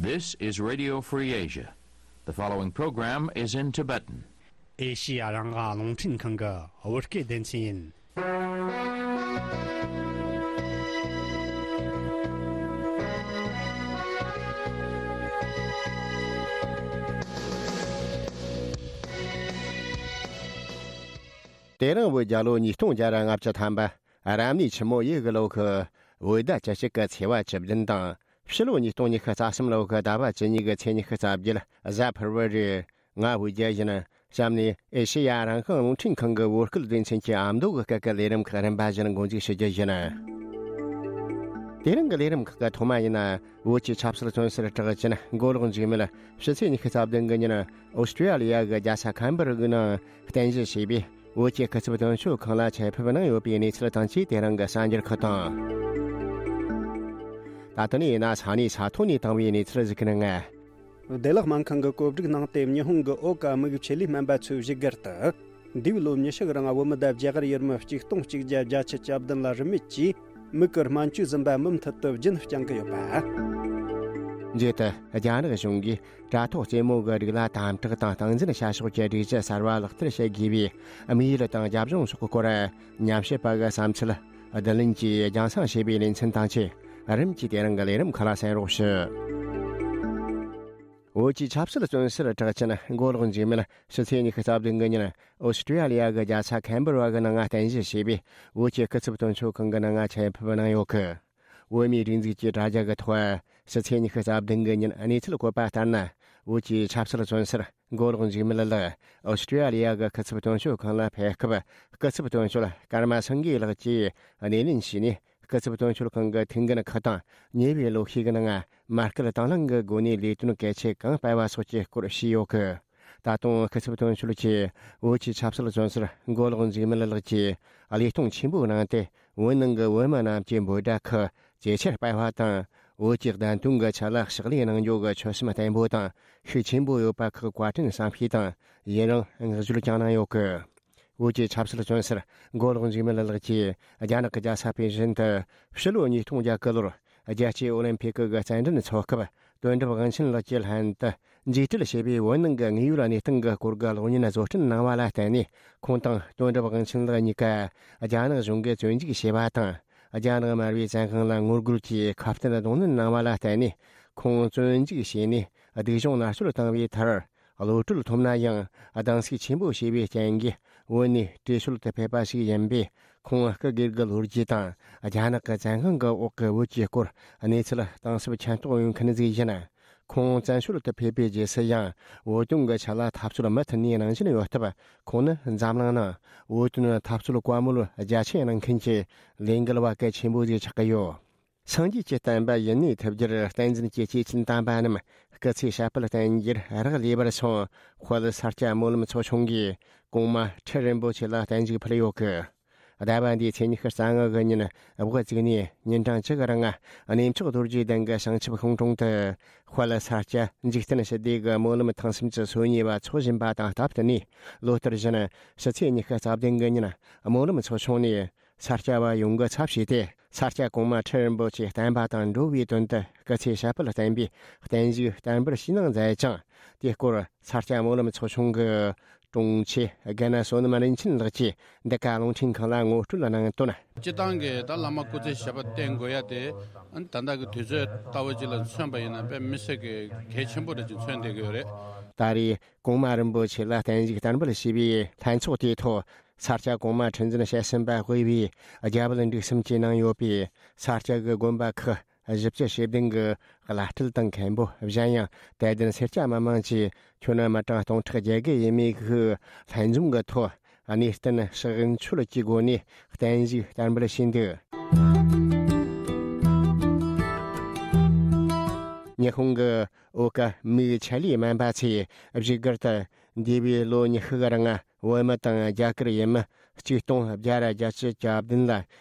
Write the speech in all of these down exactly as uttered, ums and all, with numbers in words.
This is Radio Free Asia. The following program is in Tibetan. ཨེ་ཤི་ཡ་རང་དབང་རླུང་འཕྲིན་ཁང་གི་བོད་སྐད་སྡེ་ཚན་ཡིན། དེ་རིང་བོད་རྒྱལ་ལོ་ཉིས་སྟོང་བརྒྱ་ར་ལྔ་བཅུ་ཐམ་པ། རབ་གནས་ཆུ་མོ་ཡོས་གི་ལོ་གི་བོད་ཟླ་བཅུ་གཅིག་གི་ཚེས་པ་བཅུ་བདུན་དང་། ཕྱི་ལོ་ཉིས་སྟོང་ཉི་ཤུ་རྩ་གསུམ་ལོ་གི་ཟླ་བ་བཅུ་གཉིས་གི་ཚེས་ཉི་ཤུ་རྩ་བརྒྱད་གཟའ་ཕུར་བུ་རེད། ང་བོད་རྒྱལ་ཡིན། གཤམ་ནས་ཨེ་ཤེ་ཡ་རང་དབང་རླུང་འཕྲིན་ཁང་གི་བོད་སྐད་སྡེ་ཚན་གྱི་ཨ་མདོ་གི་སྐད་ཀྱི་ལས་རིམ་ཁག་རིམ་པ་བཞིན་འགོ་འཛུགས་ཞུ་རྒྱུ་ཡིན། དེ་རིང་གི་ལས་རིམ་ཁག་གི་ཐོག་མ་ཡིན་ན། བོད་ཀྱི་ཆབ་སྲིད་བཙོན་ཟུར་གྲགས་ཅན་མགོ་ལོག་འཇིགས་མེད་ཕྱི་ཚེས་ཉི་ཤུ་རྩ་བདུན་གི་ཉིན་ཨོ་སི་ཀྲི་ཡ་ལི་ཡ་གི་རྒྱལ་ས་ཁན་བྷ་ར་གི་ནང་རྟེན་གཞི་བྱས་པའི་བོད་ཀྱི་སྐུ་ཚབ་དོན་གཅོད་ཁང་ལ་ཆེད་ཕེབས་གནང་ཡོད་པའི་གནས་ཚུལ་དང་བཅས། དེ་རིང་གི་གསར་འགྱུར་ཁག་དང་། ད་ལྟ་ནས་ཡིན་ན་ས་གནས་ས་ཐོག་ནས་བཏང་བའི་གནས་ཚུལ་ཞིག་གི་ནང་། བདེ་ལེགས་སྨན་ཁང་གི་བཀོད་སྒྲིག་གནང་སྟེ། ཉི་ཧོང་གི་ཨོ་ཀ་དམིགས་ཆེད་ལས་སྨན་པ་ཚོས་བཞུགས་སྒར་དུ། འདས་པའི་ལོ་ཉི་ཤུ་གི་རིང་བོད་མི་དང་རྒྱ་གར་ཡུལ་མི་གཅིག་སྟོང་གཅིག་བརྒྱ་བརྒྱད་ཅུ་གྱ་བདུན་ལ་རིན་མེད་ཀྱིས་མིག་གི་སྨན་བཅོས་ཟིན་པ་མུ་མཐུད་དུ་རྒྱུན་བསྐྱང་གི་ཡོད་པ། མཇུག་ཏུ་རྒྱ་ནག་གཞུང་གིས་དྲ་ཐོག་རྩེད་མོ་གི་སྒྲིག་གླ་དམ་དྲག་དང་སྟངས་འཛིན་བྱ་ཕྱོགས་ཀྱི་སྒྲིག་གཞི་གསར་བ་ལག་བསྟར་བྱེད་དགོས་པའི་དམིགས་ཡུལ་དང་རྒྱབ་ལྗོངས་སོགས་སྐོར་ཉམས་ཞིབ་པ་གི་བསམ་ཚུལ་བསྡུ་ལེན་གྱིས་རྒྱང་སྲིང་བྱས་པའི་ལེ་ཚན་དང་བཅས། རིམ་གྱིས་དེ་རིང་གི་ལས་རིམ་ཁག་ལ་གསན་རོགས་ཞུ། བོད་ཀྱི་ཆབ་སྲིད་བཙོན་ཟུར་གྲགས་ཅན་མགོ་ལོག་འཇིགས་མེད་ཕྱི་ཚེས་ཉི་ཤུ་རྩ་བདུན་གི་ཉིན་ཨོ་སི་ཀྲི་ཡ་ལི་ཡ་གི་རྒྱལ་ས་ཁན་བྷ་ར་གི་ནང་རྟེན་གཞི་བྱས་པའི་བོད་ཀྱི་སྐུ་ཚབ་དོན་གཅོད་ཁང་གི་ནང་ཆེད་ཕེབས་གནང་ཡོད་གི། བོད་མིའི་སྒྲིག་འཛུགས་ཀྱི་དྲ་རྒྱ་གི་ཐོག་ཕྱི་ཚེས་ཉི་ཤུ་རྩ་བདུན་གི་ཉིན་གནས་ཚུལ་བཀོད་པ་ལྟར་ན། བོད་ཀྱི་ཆབ་སྲིད་བཙོན་ཟུར་མགོ་ལོག་འཇིགས་མེད་ལགས་ཨོ་སི་ཀྲི་ཡ་ལི་ཡ་གི་སྐུ་ཚབ་དོན་གཅོད་ཁང་ལ་ཕེབས་སྐབས། སྐུ་ཚབ་དོན་གཅོད་ཀརྨ་སེང་གེ་ལགས་ཀྱིས་སྣེ་ལེན་བྱས་ནས། སྐུ་ཚབ་དོན་གཅོད་ཁང་གི་ཐུགས་འགན་ཁག་དང་ཉེ་བའི་ལོ་ཤས་ཀྱི་ནང་མ་སྐུལ་དང་བླངས་ཀྱི་སྒོ་ནས་ལས་དོན་གལ་ཆེ་གང་སྤེལ་བ་སོགས་ཀྱི་སྐོར་ཞུས་ཡོད་གི། ད་དུང་སྐུ་ཚབ་དོན་གཅོད་ཀྱིས་བོད་ཀྱི་ཆབ་སྲིད་བཙོན་ཟུར་མགོ་ལོག་འཇིགས་མེད་ལགས་ཀྱིས་བློས་གཏོང་ཆེན་པོ་གནང་སྟེ། བོད་ནང་གི་བོད་མི་རྣམས་ཀྱི་འབོད་སྒྲ་ཁག་ཇེ་ཆེར་སྤེལ་བ་དང་། བོད་ཀྱི་བདེན་དོན་གྱི་ཆེད་ལ་ཕྱག་ལས་གནང་རྒྱུ་གི་ཆོད་སེམས་བརྟན་པོ་དང་ཤུགས་ཆེན་པོ་ཡོད་པ་ཁག་བཀའ་དྲིན་བསམ་ཤེས་དང་ཡི་རང་བསྔགས་བརྗོད་ཀྱང་གནང་ཡོད་གི། བོད་ཀྱི་ཆབ་སྲིད་བཙོན་ཟུར་མགོ་ལོག་འཇིགས་མེད་ལགས་ཀྱིས་རྒྱ་ནག་གི་རྒྱལ་ས་པེ་ཅིན་དུ་ཕྱི་ལོ་ཉིས་སྟོང་བརྒྱད་ཀྱི་ལོར་རྒྱལ་སྤྱིའི་ཨོ་ལིམ་ཕིག་གི་རྩེད་འགྲན་འཚོགས་སྐབས། དོན་གྲུབ་དབང་ཆེན་ལགས་ཀྱི་ལྷན་དུ་མཇུག་སྒྲིལ་བྱས་པའི་བོད་ནང་གི་དངོས་ཡོད་གནས་སྟངས་ཀྱི་སྐོར་གྱི་གློག་བརྙན་བཟོ་སྐྲུན་གནང་བ་ལ་བརྟེན་ནས། ཁོང་དང་དོན་གྲུབ་དབང་ཆེན་ལགས་གཉིས་ཀ་རྒྱ་ནག་གཞུང་གིས་བཙོན་འཇུག་བྱས་པ་དང་། རྒྱ་ནག་དམར་པོའི་བཙན་དབང་ལ་ངོ་རྒོལ་གྱིས་ཁ་གཏད་གདོང་ལེན་གནང་བ་ལ་བརྟེན་ནས། ཁོང་བཙོན་འཇུག་བྱས་ནས་སྡུག་སྦྱོང་མནར་གཅོད་བཏང་བའི་མཐར། གློད་གྲོལ་ཐོབ་ན་ཡང་སྡང་ཟུག་ཆེན་པོ་བྱས་པའི་རྐྱེན་གྱིས་བོད་ནས་བྲོས་བྱོལ་དུ་ཕེབས་པ་ཞིག་ཡིན་པས། ཁོང་སྐུ་སྒེར་གྱི་ལོ་རྒྱུས་དང་རྒྱ་ནག་གི་བཙན་དབང་གི་འོག་གི་བོད་ཀྱི་སྐོར་གནས་ཚུལ་གཏིང་ཟབ་མཁྱེན་རྟོགས་ཡོད་མཁན་ཟིག་ཡིན། ཁོང་བཙན་བྱོལ་དུ་ཕེབས་པའི་རྗེས་སུ་ཡང་བོད་དོན་གྱི་ཆེད་ལ་འཐབ་རྩོད་མུ་མཐུད་ནས་གནང་བཞིན་ཡོད་སྟབས། ཁོང་ནི་འཛམ་གླིང་ནང་བོད་དོན་འཐབ་རྩོད་བཀའ་མོལ་རྒྱ་ཆེན་གནང་མཁན་གྱི་ལས་འགུལ་བ་གལ་ཆེན་པོ་ཞིག་ཆགས་ཀྱི་ཡོད། སངས་རྒྱས་ཀྱི་བསྟན་པ་ཡུན་གནས་ཐུབ་རྒྱུར་བསྟན་འཛིན་གྱི་སྐྱེས་ཆེན་དམ་པ་རྣམས་སྐུ་ཚེ་ཞབས་པད་བརྟན་རྒྱུར་རག་ལས་པར་སོང་། དཔལ་ས་སྐྱ་སྨོན་ལམ་ཚོགས་ཆུང་གིས་གོང་མ་ཁྲི་རིན་པོ་ཆེ་ལ་བརྟན་བཞུགས་ཕུལ་ཡོད་གི། ཟླ་བ་འདིའི་ཚེས་ཉི་ཤུ་རྩ་ལྔ་གི་ཉིན་བགོ་བཙུགས་ནས་ཉིན་གྲངས་བཅུ་གི་རིང་གནས་མཆོག་རྡོ་རྗེ་གདན་གྱི་བྱང་ཆུབ་ཤིང་དྲུང་དུ། དཔལ་ས་སྐྱ་འཇིག་རྟེན་ཞི་བདེ་གི་སྨོན་ལམ་ཐེངས་སུམ་ཅུ་སོ་གཉིས་པ་འཚོགས་བཞིན་པ་དང་སྟབས་བསྟུན་ནས། ལོ་ལྟར་བཞིན་ཕྱི་ཚེས་ཉི་ཤུ་རྩ་བདུན་གི་ཉིན་སྨོན་ལམ་ཚོགས་ཆུང་ནས་ས་སྐྱ་བ་ཡོངས་ཀྱིས་ཚབ་བྱས་ཏེ། ས་སྐྱ་གོང་མ་ཁྲི་རིན་པོ་ཆེ་བསྟན་པ་དང་འགྲོ་བའི་དོན་དུ་སྐུ་ཚེ་ཞབས་པད་བརྟན་པའི་བརྟན་བཞུགས་བསྟར་འབུལ་ཞུས་གནང་མཛད་ཅིང་། དེའི་སྐོར་ས་སྐྱ་སྨོན་ལམ་ཚོགས་ཆུང་གི་དྲུང་ཆེ་དགེ་ན་བསོད་ནམས་རིན་ཆེན་ལགས་ཀྱིས་འདི་ག་རླུང་འཕྲིན་ཁང་ལ་ངོ་སྤྲོད་གནང་དོན། སྤྱིར་བཏང་གི་ད་བླ་མ་སྐུ་ཚེ་ཞབས་པད་བརྟན་དགོས་ཡ་དེ། ཨ་ནི་ད་ལྟ་གི་དུས་ཚོད་ལྟ་བུ་ཅིག་ལ་མཚོན་པ་ཡིན་ན་དཔེ་མི་སྲིད་ཀྱི་གལ་ཆེན་པོ་འདྲ་ཅིག་མཚོན་བསྡད་ཀྱི་ཡོད་རེད། ད་རེས་གོང་མ་རིན་པོ་ཆེ་ལ་བརྟན་བཞུགས་བསྟར་འབུལ་ཞུས་པའི་ལྷན་ཚོགས་དེའི་ཐོག་ས་སྐྱ་གོང་མ་ཁྲི་འཛིན་དཔྱད་ཞུམ་པ་དབུས་པའི་རྒྱ་བལ་འབྲུག་གསུམ་གྱིས་གནང་ཡོད་པའི་ས་སྐྱ་གི་དགོན་པ་ཁག་བཞི་བཅུ་ཞེ་བདུན་གྱི་བླ་སྤྲུལ་དང་མཁན་པོ། གཞན་ཡང་དད་ལྡན་སེར་སྐྱ་མི་མང་གིས་ཁྱོན་མི་གྲངས་སྟོང་ཕྲག་བརྒྱད་བརྒལ་ཡས་མས་ཤིག་ལྷན་འཛོམས་ཀྱི་ཐོག་གནས་བརྟན་ཕྱག་མཆོད་ཀྱི་སྒོ་ནས་བརྟན་བཞུགས་བསྟར་འབུལ་ཞུས་འདུག། ཉི་ཧོང་གི་ཨོ་ཀ་མིག་ཆེད་ལས་སྨན་པ་ཚོས་བཞུགས་སྒར་དུ་འདས་པའི་ལོ་ཉི་ཤུ་གི་རིང་བོད་མི་དང་རྒྱ་གར་ཡུལ་མི་གཅིག་སྟོང་བརྒྱ་ར་བརྒྱད་ཅུ་གྱ་བདུན་ལ་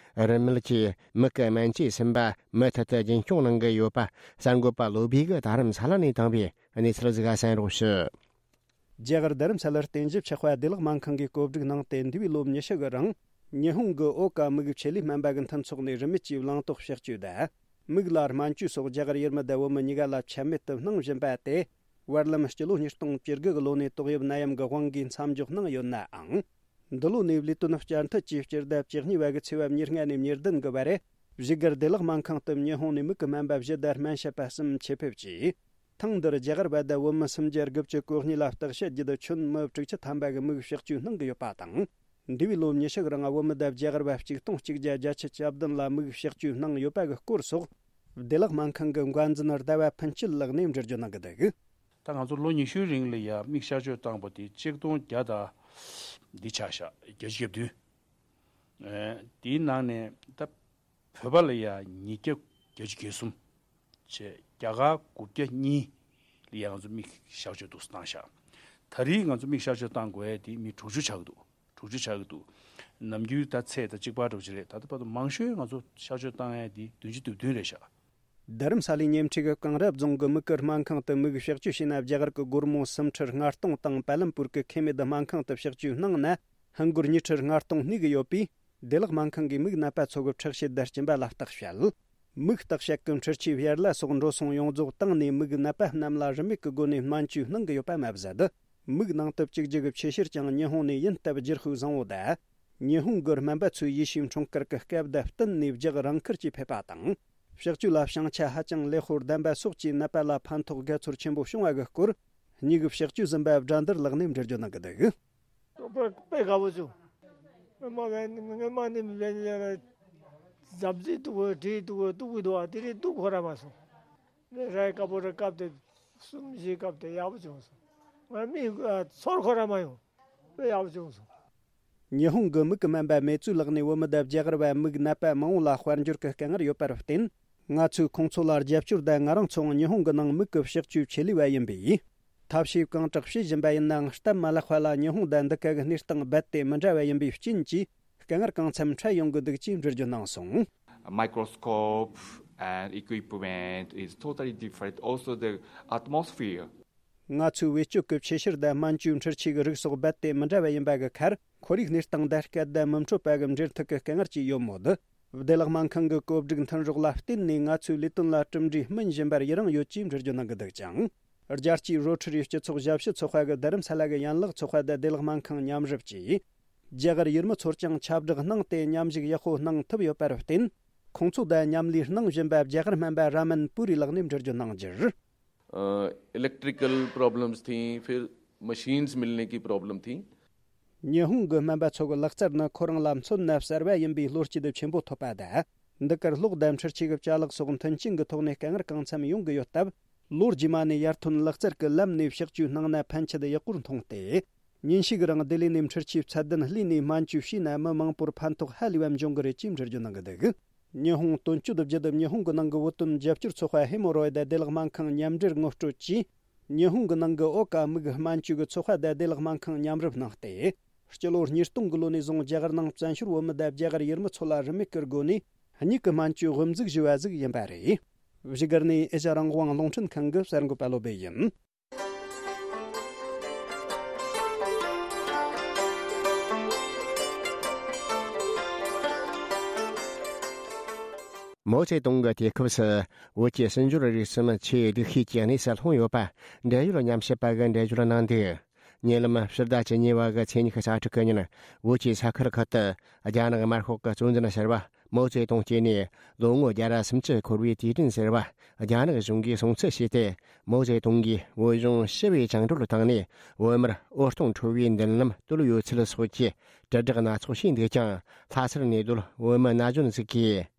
རིན་མེད་ཀྱིས་མིག་གི་སྨན་བཅོས་ཟིན་པ་མུ་མཐུད་དུ་རྒྱུན་སྐྱོང་གནང་གི་ཡོད་པ་གསར་འགོད་པ་བློ་བྷེ་གིས་དྷ་རམ་ས་ལ་ནས་བཏང་བའི་གནས་ཚུལ་ཞིག་གསན་རོགས་ཞུ། རྒྱ་གར་དྷ་རམ་ས་ལར་རྟེན་གཞི་ཆགས་པ་བདེ་ལེགས་སྨན་ཁང་གིས་བཀོད་སྒྲིག་གནང་སྟེ། འདས་པའི་ལོ་ཉི་ཤུ་གི་རིང་ཉི་ཧོང་གི་ཨོ་ཀ་དམིགས་ཆེད་ལས་སྨན་པ་གི་མཐུན་ཚོགས་ནས་རིན་མེད་ཀྱིས་བླངས་ཏོག་ཕྱག་བཅོས་དང་ མིག་ལ་སྨན་བཅོས་སོགས་རྒྱ་གར་ཡུལ་མི་དང་བོད་མི་གཉིས་ཀ་ལ་ཆད་མེད་དུ་གནང་བཞིན་པ་དེ། བར་ལམ་སྤྱི་ལོ་ཉིས་སྟོང་བཅུ་དགུ་གི་ལོ་ནས་ཏོག་དབྱིབས་ནད་ཡམས་ཀྱི་དབང་གིས་མཚམས་འཇོག་གནང་ཡོད་ནའང་། འདི་ལོ་ནས་ལས་དོན་བསྐྱར་མཐུད་ཀྱིས་སྤྱི་ཟླ་བཅུ་གཉིས་པ་གི་ཚེས་པ་ཉེར་ལྔ་ནས་ཉེར་བདུན་གི་བར། བཞུགས་སྒར་བདེ་བླག་སྨན་ཁང་དུ་ཉི་ཧོང་ནས་མིག་གི་སྨན་པ་བཞི་དང་སྨན་ཞབས་པ་གསུམ་ཆེད་ཕེབས་ཀྱིས། ཐེངས་འདིར་རྒྱ་གར་བ་དང་བོད་མི་སུམ་བརྒྱ་དགུ་བཅུ་གོ་གཉིས་ལ་བརྟག་དཔྱད་བརྒྱུད། ཁྱོན་མི་དྲུག་ཅུ་ཐམ་པ་གི་མིག་བཤགས་བཅོས་གནང་གི་ཡོད་པ་དང་། འདས་པའི་ལོ་ཉི་ཤུ་གི་རིང་བོད་མི་དང་རྒྱ་གར་བ་གཅིག་སྟོང་གཅིག་བརྒྱ་བརྒྱད་ཅུ་གྱ་བདུན་ལ་མིག་བཤགས་བཅོས་གནང་ཡོད་པ་གི་སྐོར་སོགས། བདེ་བླག་སྨན་ཁང་གི་འགོ་འཛིན་ཟླ་བ་ཕུན་སྐྱིད་ལགས་ནས་འགྲེལ་བརྗོད་གནང་གི་འདུག། ད་ང་ཚོ་ལོ་ཉི་ཤུའི་རིང་ལ་ཡ་མིག་གཤག་བཅོས་བཏང་པ་དེ་ཆིག་སྟོང་བརྒྱ་དང་འདི་ཆགས་ཤག་བརྒྱད་ཅུ་གྱ་བདུན། ཨེ། དེའི་ནང་ནས་ད་བོད་པ་ལ་ཡ་ཉིས་བརྒྱ་བརྒྱད་ཅུ་གྱ་གསུམ་བྱས། རྒྱ་གར་དགུ་བརྒྱ་གཉིས་ལ་ཡ་ང་ཚོ་མིག་གཤག་བཅོས་འདུག་སེ་བཏང་ཤག། ད་རེས་ང་ཚོ་མིག་གཤག་བཅོས་བཏང་དགོས་ཡ་དེ་མི་དྲུག་ཅུ་ཆགས་ཀྱི་འདུག། དྲུག་ཅུ་ཆགས་ཀྱི་འདུག། ནམ་རྒྱུན་ད་ཚད་ད་གཅིག་པ་འདྲ་པོ་ཅིག་རེད། ད་ལྟ་བར་དུ་མང་ཤོས་ང་ཚོ་གཤག་བཅོས་བཏང་ཡ་དེ་བདུན་ཅུ་དོན་བདུན་རེད་ཤག། རྡ་རམ་ས་ལའི་ཉེ་འཁྲིས་ཀྱི་གངས་རི་རྫོང་གི་མིག་གི་སྨན་ཁང་དུ་མིག་གཤག་བཅོས་བྱས་ན། རྒྱ་གར་གྱི་སྒོར་མོ་སུམ་ཁྲི་ལྔ་སྟོང་དང་། པཱ་ལམ་པུར་གྱི་ཁེ་མེད་སྨན་ཁང་དུ་གཤག་བཅོས་གནང་ན། ཧིན་སྒོར་ཉི་ཁྲི་ལྔ་སྟོང་གནས་ཀྱི་ཡོད་པས། བདེ་བླག་སྨན་ཁང་གིས་མིག་ནད་པ་ཚོ་གི་འཁྲུག་བཤད་དང་སྦྱིན་པ་ལ་བརྟག་དཔྱད། མིག་བརྟག་དཔྱད་ཀྱི་འཕྲུལ་ཆས་བྱར་ལ་སོགས་འགྲོ་སོང་ཡོངས་རྫོགས་བཏང་ནས། མིག་ནད་པ་རྣམས་ལ་རིན་མེད་ཀྱི་སྒོ་ནས་སྨན་བཅོས་གནང་གི་ཡོད་པ་མ་ཟད། མིག་ནང་དུ་བཅུག་རྒྱུ་གི་ཆེད་གཤེར་ཀྱང་ཉི་ཧོང་ནས་ཡིན་སྟབས། རྒྱུ་ཧུའུ་བཟང་བོ་དང་། ཉི་ཧོང་གི་སྨན་པ་ཚོའི་ཡེ་ཤུའི་འཁྲུངས་སྐར་གྱི་སྐབས་དང་བསྟུན་ནས་རྒྱག་རང་འཁུར་གྱིས་ཕེབས་པ་དང་། གཤག་བཅོས་ལ་བྱང་ཆ་ཧ་ཅང་ལེགས་པོ་ལྡན་པ་སོགས་ཀྱིས་ནད་པ་ལ་ཕན་ཐོགས་དགའ་ཚོར་ཆེན་པོ་བྱུང་བ་གི་སྐོར། མྱི་གི་གཤག་བཅོས་ཟིན་པ་སྒྲ་འདིར་ལགས་ནས་འགྲེལ་བརྗོད་གནང་གི་འདུག། དཔེ་དཔེ་དགའ་པོ་བྱུང་། སྔོན་མ་བས་སྔོན་མ་ནི་བས་ལས་ལ་འཛབ་རྩིས་འདུག་གོ། བྲིས་འདུག་གོ། འདུག་གི་འདུག་ཨ། དེ་རིང་འདུག་ཁོ་ར་མ་སོང་། ནི་རའི་དཀར་པོ་ར་བཀབ་སྟེ་གསུམ་བཞི་བཀབ་སྟེ་ཡག་པོ་བྱུང་སོང་། ང་མི་ཚོར་ཁོ་ར་མ་ཡོང་། དཔེ་ཡག་པོ་བྱུང་སོང་། ཉི་ཧོང་གི་མིག་གི་སྨན་པ་མེ་ཙུའུ་ལགས་ནས་བོད་མི་དང་རྒྱ་གར་བ་མིག་ནད་པ་མང་བོ་ལ་དཔལ་འབྱོར་གྱི་དཀའ་ངལ་ཡོད་པར་བརྟེན། ང་ཚོས་ཁོང་ཚོ་ལ་རྒྱབ་སྐྱོར་དང་། ང་རང་ཚོའང་ཉི་ཧོང་གི་ནང་མིག་གི་གཤག་བཅོས་ཆེད་ལས་པ་ཡིན་པས། ཐབས་ཤེས་གང་དྲག་བྱེད་བཞིན་པ་ཡིན་ནའང་། སྟབས་མ་ལེགས་པ་ལ་ཉི་ཧོང་དང་འདི་ག་གི་གནས་སྟངས་རྦད་དེ་མི་འདྲ་བ་ཡིན་པའི་རྐྱེན་གྱིས། དཀའ་ངལ་གང་འཚམ་འཕྲད་ཡོང་གི་འདུག་ཅེས་འགྲེལ་བརྗོད་གནང་སོང་། Microscope and equipment is totally different. Also the atmosphere. ང་ཚོའི་བེད་སྤྱོད་ཀྱི་ཆེད་གཤེར་དང་སྨན་བཅོས་འཕྲུལ་ཆས་ཀྱི་རིགས་སོགས་རྦད་དེ་མི་འདྲ་བ་ཡིན་པ་གི་ཁར། ཁོར་ཡུག་གནས་སྟངས་དང་སྐད་བརྡ་མི་འཕྲོད་པ་གི་འབྲེལ་ཐུག་གི་དཀའ་ངལ་ཅིག་ཡོད་མོད། བདེ་བླག་སྨན་ཁང་གི་བཀོད་སྒྲིག་མཐུན་སྒྲོག་ལ་བརྟེན་ནས། ང་ཚོའི་ལས་དོན་ལ་གྲུབ་འབྲས་སྨིན་བཞིན་པར་ཡི་རངས་ཡོད་ཅེས་འགྲེལ་བརྗོད་གནང་གི་འདུག་ཀྱང་། རྒྱལ་སྤྱིའི་རོ་ཊ་རི་སྤྱི་ཚོགས་ཞབས་ཞུ་ཚོགས་པ་གི་རྡ་རམ་ས་ལ་གི་ཡན་ལག་ཚོགས་པ་དང་བདེ་བླག་སྨན་ཁང་མཉམ་རུབ་ཀྱིས། རྒྱ་གར་ཡུལ་མི་ཚོར་ཀྱང་ཁྱབ་བསྒྲགས་གནང་སྟེ། མཉམ་ཞུགས་ཡག་པོ་གནང་ཐུབ་ཡོད་པར་བརྟེན། ཁོང་ཚོ་དང་མཉམ་ལས་གནང་བཞིན་པ་རྒྱ་གར་སྨན་པ་ར་མན་པུ་རི་ལགས་ནས་འགྲེལ་བརྗོད་གནང་རྒྱུར། a, electrical problems थी, फिर मशीन्स मिलने की प्रॉब्लम थी। ཉི་ཧོང་གི་སྨན་པ་ཚོ་གི་ལག་རྩལ་ནི་ཁོ་རང་ལ་མཚོན་ན་གསར་བ་ཡིན་པའི་བློ་སྐྱེད་ཆེན་པོ་ཐོབ་པ་དང་། འདི་གར་གློག་དང་འཕྲུལ་ཆས་ཀྱི་ཅ་ལག་སོགས་མཐུན་རྐྱེན་གྱི་ཐོག་ནས་དཀའ་ངལ་གང་འཚམ་ཡོང་གི་ཡོད་སྟབས། ལོ་རྗེས་མ་ནས་ཡར་ཐོན་ལག་རྩལ་གྱི་ལམ་ནས་གཤག་བཅོས་གནང་ན་ཕན་ཆད་ཡག་པོར་མཐོང་སྟེ། ཉིན་ཞིག་རིང་བདེ་ལས་ནས་འཕྲུལ་ཆས་ཚད་ལྡན་ལྷོས་ནས་སྨན་བཅོས་བྱས་ན་མི་མང་པོར་ཕན་ཐོགས་ཧ་ལས་པ་འབྱུང་གི་རེད་ཅེས་འགྲེལ་བརྗོད་གནང་གི་འདུག། ཉི་ཧོང་དོན་གཅོད་བརྒྱུད་ཉི་ཧོང་གི་ནང་གི་བོད་དོན་རྒྱབ་སྐྱོར་ཚོགས་པ་ཧེ་མོ་རོ་ཡི་དང་བདེ་བླག་སྨན་ཁང་མཉམ་འབྲེལ་ངོ་སྤྲོད་ཀྱིས། ཉི་ཧོང་གི་ནང་གི་ཨོ་ཀ་མིག་སྨན་བཅོས་ཀྱི་ཚོགས་པ་དང་བདེ་བླག་སྨན་ཁང་མཉམ་རུབ་གནང་སྟེ། སྤྱི་ལོ་ཉིས་སྟོང་གི་ལོ་ནས་བཟུང་རྒྱ་གར་ནང་བཙན་བྱོལ་བོད་མི་དང་རྒྱ་གར་ཡུལ་མི་ཚོ་ལ་རིན་མེད་ཀྱི་སྒོ་ནས་མྱིག་གི་སྨན་བཅོས་དབུ་འཛུགས་ཞུས་པ་ཟིག་ཡིན་པ་རེད། བཞུགས་སྒར་ནས་ཨེ་ཤ་རང་དབང་རླུང་འཕྲིན་ཁང་གི་གསར་འགོད་པ་བློ་བྷེ་ཡིན། མའོ་ཙེ་ཏུང་གི་དུས་སྐབས་སུ་བོད་ཀྱི་སྲིད་འབྱོར་རིག་གསུམ་ཆེས་སྡུག་ཤོས་ཀྱི་གནས་སུ་ལྷུང་ཡོད་པ། འབྲེལ་ཡོད་ཉམས་ཞིབ་པ་གིས་འགྲེལ་བརྗོད་གནང་འདུག། ཉེ་ལམ་ཕྱི་ཟླ་བཅུ་གཉིས་པ་གི་ཚེས་ཉི་ཤུ་རྩ་དྲུག་གི་ཉིན། བོད་ཀྱི་ས་ཁུལ་ཁག་ཏུ་རྒྱ་ནག་དམར་ཤོག་གི་གཙོ་འཛིན་ཟུར་པ་མའོ་ཙེ་ཏུང་སྐྱེས་ནས་ལོ་ངོ་བརྒྱ་ར་སུམ་ཅུ་འཁོར་བའི་དུས་དྲན་ཟེར་བ་རྒྱ་ནག་གཞུང་གིས་སྲུང་བརྩི་བྱས་ཏེ། མའོ་ཙེ་ཏུང་གིས་བོད་གཞུང་ཞི་བའི་བཅིངས་འགྲོལ་བཏང་ནས། བོད་མིར་འོད་སྟོང་འཕྲོ་བའི་མདུན་ལམ་བཏོད་ཡོད་ཚུལ་སོགས་ཀྱི་དྲིལ་བསྒྲགས་སྣ་ཚོགས་བྱས་འདུག་ཀྱང་། ལྷ་སར་གནས་སྡོད་བོད་མི་ན་གཞོན་ཞིག་གིས།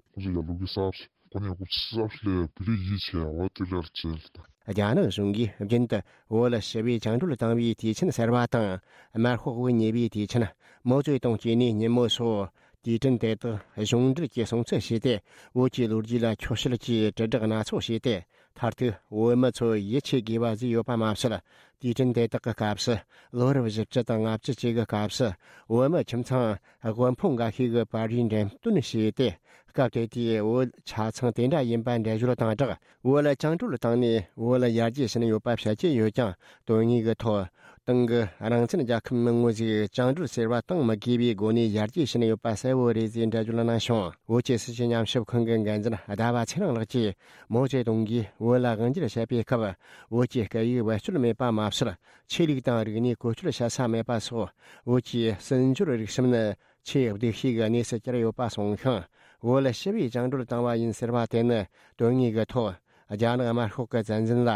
རྒྱ་ནག་གཞུང་གིས་རྒྱུན་དུ་བོད་ཞི་བའི་བཅིངས་འགྲོལ་བཏང་བའི་དུས་ཆེན་ཟེར་བ་དང་། དམར་ཤོག་དབུ་བརྙེས་པའི་དུས་ཆེན། མའོ་ཙེ་ཏུང་སྐྱེས་ནས་ཉིན་མོ་སོགས་དུས་དྲན་དེ་དག་གཞུང་འབྲེལ་གྱིས་སྲུང་བརྩི་བྱས་ཏེ། བོད་ཀྱི་ལོ་རྒྱུས་ལ་འཁྱོག་བཤད་ཀྱིས་དྲིལ་བསྒྲགས་སྣ་ཚོགས་བྱས་ཏེ། མཐར་ཐུག་བོད་མི་ཚོ་ཡིད་ཆེས་དགོས་པ་ཟིག་ཡོད་པ་མ་ཟད། དུས་དྲན་དེ་དག་གི་སྐབས་སུ། ལོ་རབས་བཞི་བཅུ་དང་ལྔ་བཅུ་བཅས་ཀྱི་སྐབས་སུ། བོད་མི་ཁྱིམ་ཚང་དབུལ་ཕོངས་འགའ་ཤས་ཀྱི་བར་རའི་འགྲེམས་སྟོན་བྱས་ཏེ། སྐབས་དེ་དུས་བོད་ཆ་ཚང་དེ་འདྲ་ཡིན་པ་འགྲེལ་བརྗོད་དང་སྦྲགས། བོད་ལ་བཅིངས་འགྲོལ་བཏང་ནས་བོད་ལ་ཡར་རྒྱས་ཕྱིན་ཡོད་པ་བཤད་ཀྱི་ཡོད་ཀྱང་། དོན་དངོས་ཀྱི་ཐོག་ ཏང་གི་རང་བཙན་རྒྱལ་ཁབ་མི་ངོ་ཞིག་བཅིངས་འགྲོལ་ཟེར་བ་གཏོང་མི་དགོས་པའི་སྒོ་ནས་ཡར་རྒྱས་ཕྱིན་ཡོད་པ་གསལ་བོ་རེད་ཅེས་འགྲེལ་བརྗོད་གནང་བྱུང་། བོད་ཀྱི་སྲིད་བྱུས་ཉམས་ཞིབ་ཁང་གི་འགན་འཛིན་ཟླ་བ་ཚེ་རིང་ལགས་ཀྱིས་མའོ་ཙེ་ཏུང་གིས་བོད་ལ་དབང་སྒྱུར་བྱེད་པའི་སྐབས། བོད་ཀྱི་སྐད་ཡིག་བེད་སྤྱོད་མེད་པ་མ་ཟད། ཆོས་ལུགས་དང་རིག་གནས་བཀོལ་སྤྱོད་བྱེད་ས་མེད་པ་སོགས། བོད་ཀྱི་སྲིད་འབྱོར་རིག་གཤམ་ནི་ཆེས་སྡུག་ཤོས་ཀྱི་གནས་སུ་གྱར་ཡོད་པ་གསུངས་ཤིང་། བོད་ལ་ཞི་བའི་བཅིངས་འགྲོལ་བཏང་བ་ཡིན་ཟེར་བ་དེ་ནི་དོན་དངོས་ཀྱི་ཐོག་རྒྱ་ནག་དམར་ཤོག་གི་བཙན་འཛུལ་ལ་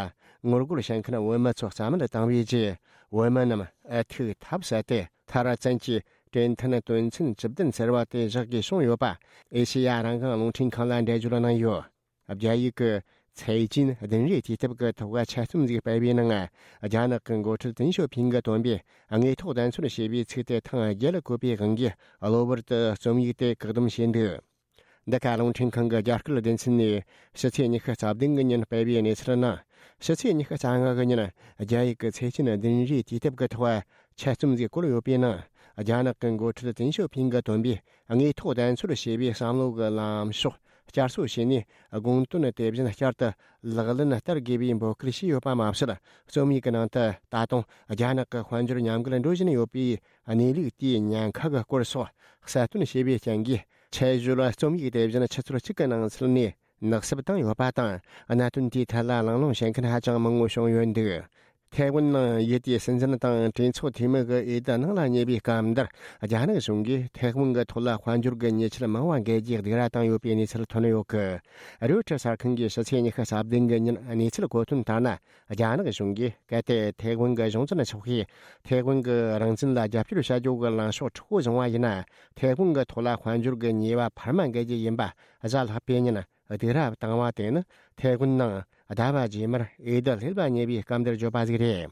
ངོ་རྒོལ་བྱེད་མཁན་བོད་མི་ཚོ་རྩ་མེད་བཏང་བའི་རྗེས། བོད་མི་རྣམས་ཨུ་ཐུག་ཐབས་ཟད་དེ། མཐར་བཙན་གྱིས་གྲོས་མཐུན་དོན་ཚན་བཅུ་བདུན་ཟེར་བ་དེ་བཞག་དགོས་བྱུང་ཡོད་པ། ཨེ་ཤེ་ཡ་རང་དབང་རླུང་འཕྲིན་ཁང་ལ་འགྲེལ་བརྗོད་གནང་ཡོད། རྒྱ་ཡིག་གི་财经administrative གི་ཐོག་ཆེད་རྩོམ་ཞིག་སྤེལ་བའི་ནང་། རྒྱ་ནག་གི་འགོ་ཁྲིད་ཏིན་ཞོ་ཕིང་གིས་བཏོན་པའི་དངོས་ཐོག་བདེན་འཚོལ་ཞེས་པའི་ཚིག་དེ་ཐེངས་བརྒྱད་ལ་བཀོད་པའི་དབང་གིས། གློ་བུར་དུ་རྩོམ་ཡིག་དེ་བཀག་སྡོམ་བྱས་འདུག། འདི་ག་རླུང་འཕྲིན་ཁང་གི་རྒྱ་སྐད་སྡེ་ཚན་ནས་ཕྱི་ཚེས་ཉི་ཤུ་རྩ་བདུན་གི་ཉིན་སྤེལ་བའི་གནས་ཚུལ་ནང་། ཕྱི་ཚེས་ཉི་ཤུ་རྩ་ལྔ་གི་ཉིན་རྒྱ་ཡིག་གི་财经administrative གི་ཐོག་ཆེད་རྩོམ་ཞིག་བཀོད་ཡོད་པའི་ནང་། རྒྱ་ནག་གི་འགོ་ཁྲིད་ཏིན་ཞོ་ཕིང་གིས་བཏོན་པའི་དངོས་ཐོག་བདེན་འཚོལ་ཞེས་པའི་བསམ་བློ་གི་ལངས་ཕྱོགས་བསྐྱར་གསོ་བྱས་ནས། དགོངས་དོན་དེ་བཞིན་བསྐྱར་དུ་ལག་ལེན་བསྟར་དགོས་པའི་འབོད་སྐུལ་བྱས་ཡོད་པ་མ་ཟད། རྩོམ་ཡིག་གི་ནང་དུ་ད་དུང་རྒྱ་ནག་གི་དཔལ་འབྱོར་ཉམས་རྒུད་འགྲོ་བཞིན་ཡོད་པའི་གནས་ལུགས་དེའི་ཉེན་ཁ་གི་སྐོར་སོགས་གསལ་སྟོན་བྱས་པའི་རྐྱེན་གྱིས། ཆེད་བརྗོད་རྩོམ་ཡིག་དེ་བཞིན་ཆུ་ཚོད་གཅིག་གི་ནང་ཚུད་ནས་ནག་བསུབ་བཏང་ཡོད་པ་དང་། གནད་དོན་དེའི་ཐད་ལ་གླེང་སློང་བྱེད་མཁན་ཧ་ཅང་མང་པོ་བྱུང་ཡོད་འདུག། ཐའེ་ཝན་ནང་ཡུལ་དེའི་སྲིད་འཛིན་དང་གྲོས་ཚོགས་འཐུས་མི་གི་འོས་བསྡུ་ནང་ལ་ཉེ་བའི་སྐབས་འདིར། རྒྱ་ནག་གཞུང་གིས་ཐའེ་ཝན་གྱི་ཐོག་ལ་དཔལ་འབྱོར་གྱི་ཉེས་ཆད་མང་བ་འགེལ་རྒྱུའི་སྡིགས་ར་བཏང་ཡོད་པའི་གནས་ཚུལ་ཐོན་ཡོད་གི། རོའི་ཊར་གསར་ཁང་གིས་ཕྱི་ཚེས་ཉི་ཤུ་རྩ་བདུན་གི་ཉིན་གནས་ཚུལ་གོ་དོན་ལྟར་ན། རྒྱ་ནག་གཞུང་གིས་གལ་ཏེ་ཐའེ་ཝན་གྱི་གཞུང་འཛིན་ཚོགས་པས་ཐའེ་ཝན་གྱི་རང་བཙན་ལ་རྒྱབ་སྐྱོར་བྱ་རྒྱུ་གི་ལངས་ཕྱོགས་མཁྲེགས་པོ་བཟུང་བ་ཡིན་ན། ཐའེ་ཝན་གྱི་ཐོག་ལ་དཔལ་འབྱོར་གྱི་ཉེས་པ་འཕར་མ་འགེལ་རྒྱུ་ཡིན་པ། གཟའ་ལྷག་པའི་ཉིན་སྡིགས་ར་བཏང་བ་དེ་ནི་ཐའེ་ཝན་ནང་ཟླ་བ་རྗེས་མར་འོས་བསྡུ་སླེབས་པ་ཉེ་བའི་སྐབས་འདིར་བརྗོད་པ་ཞིག་རེད།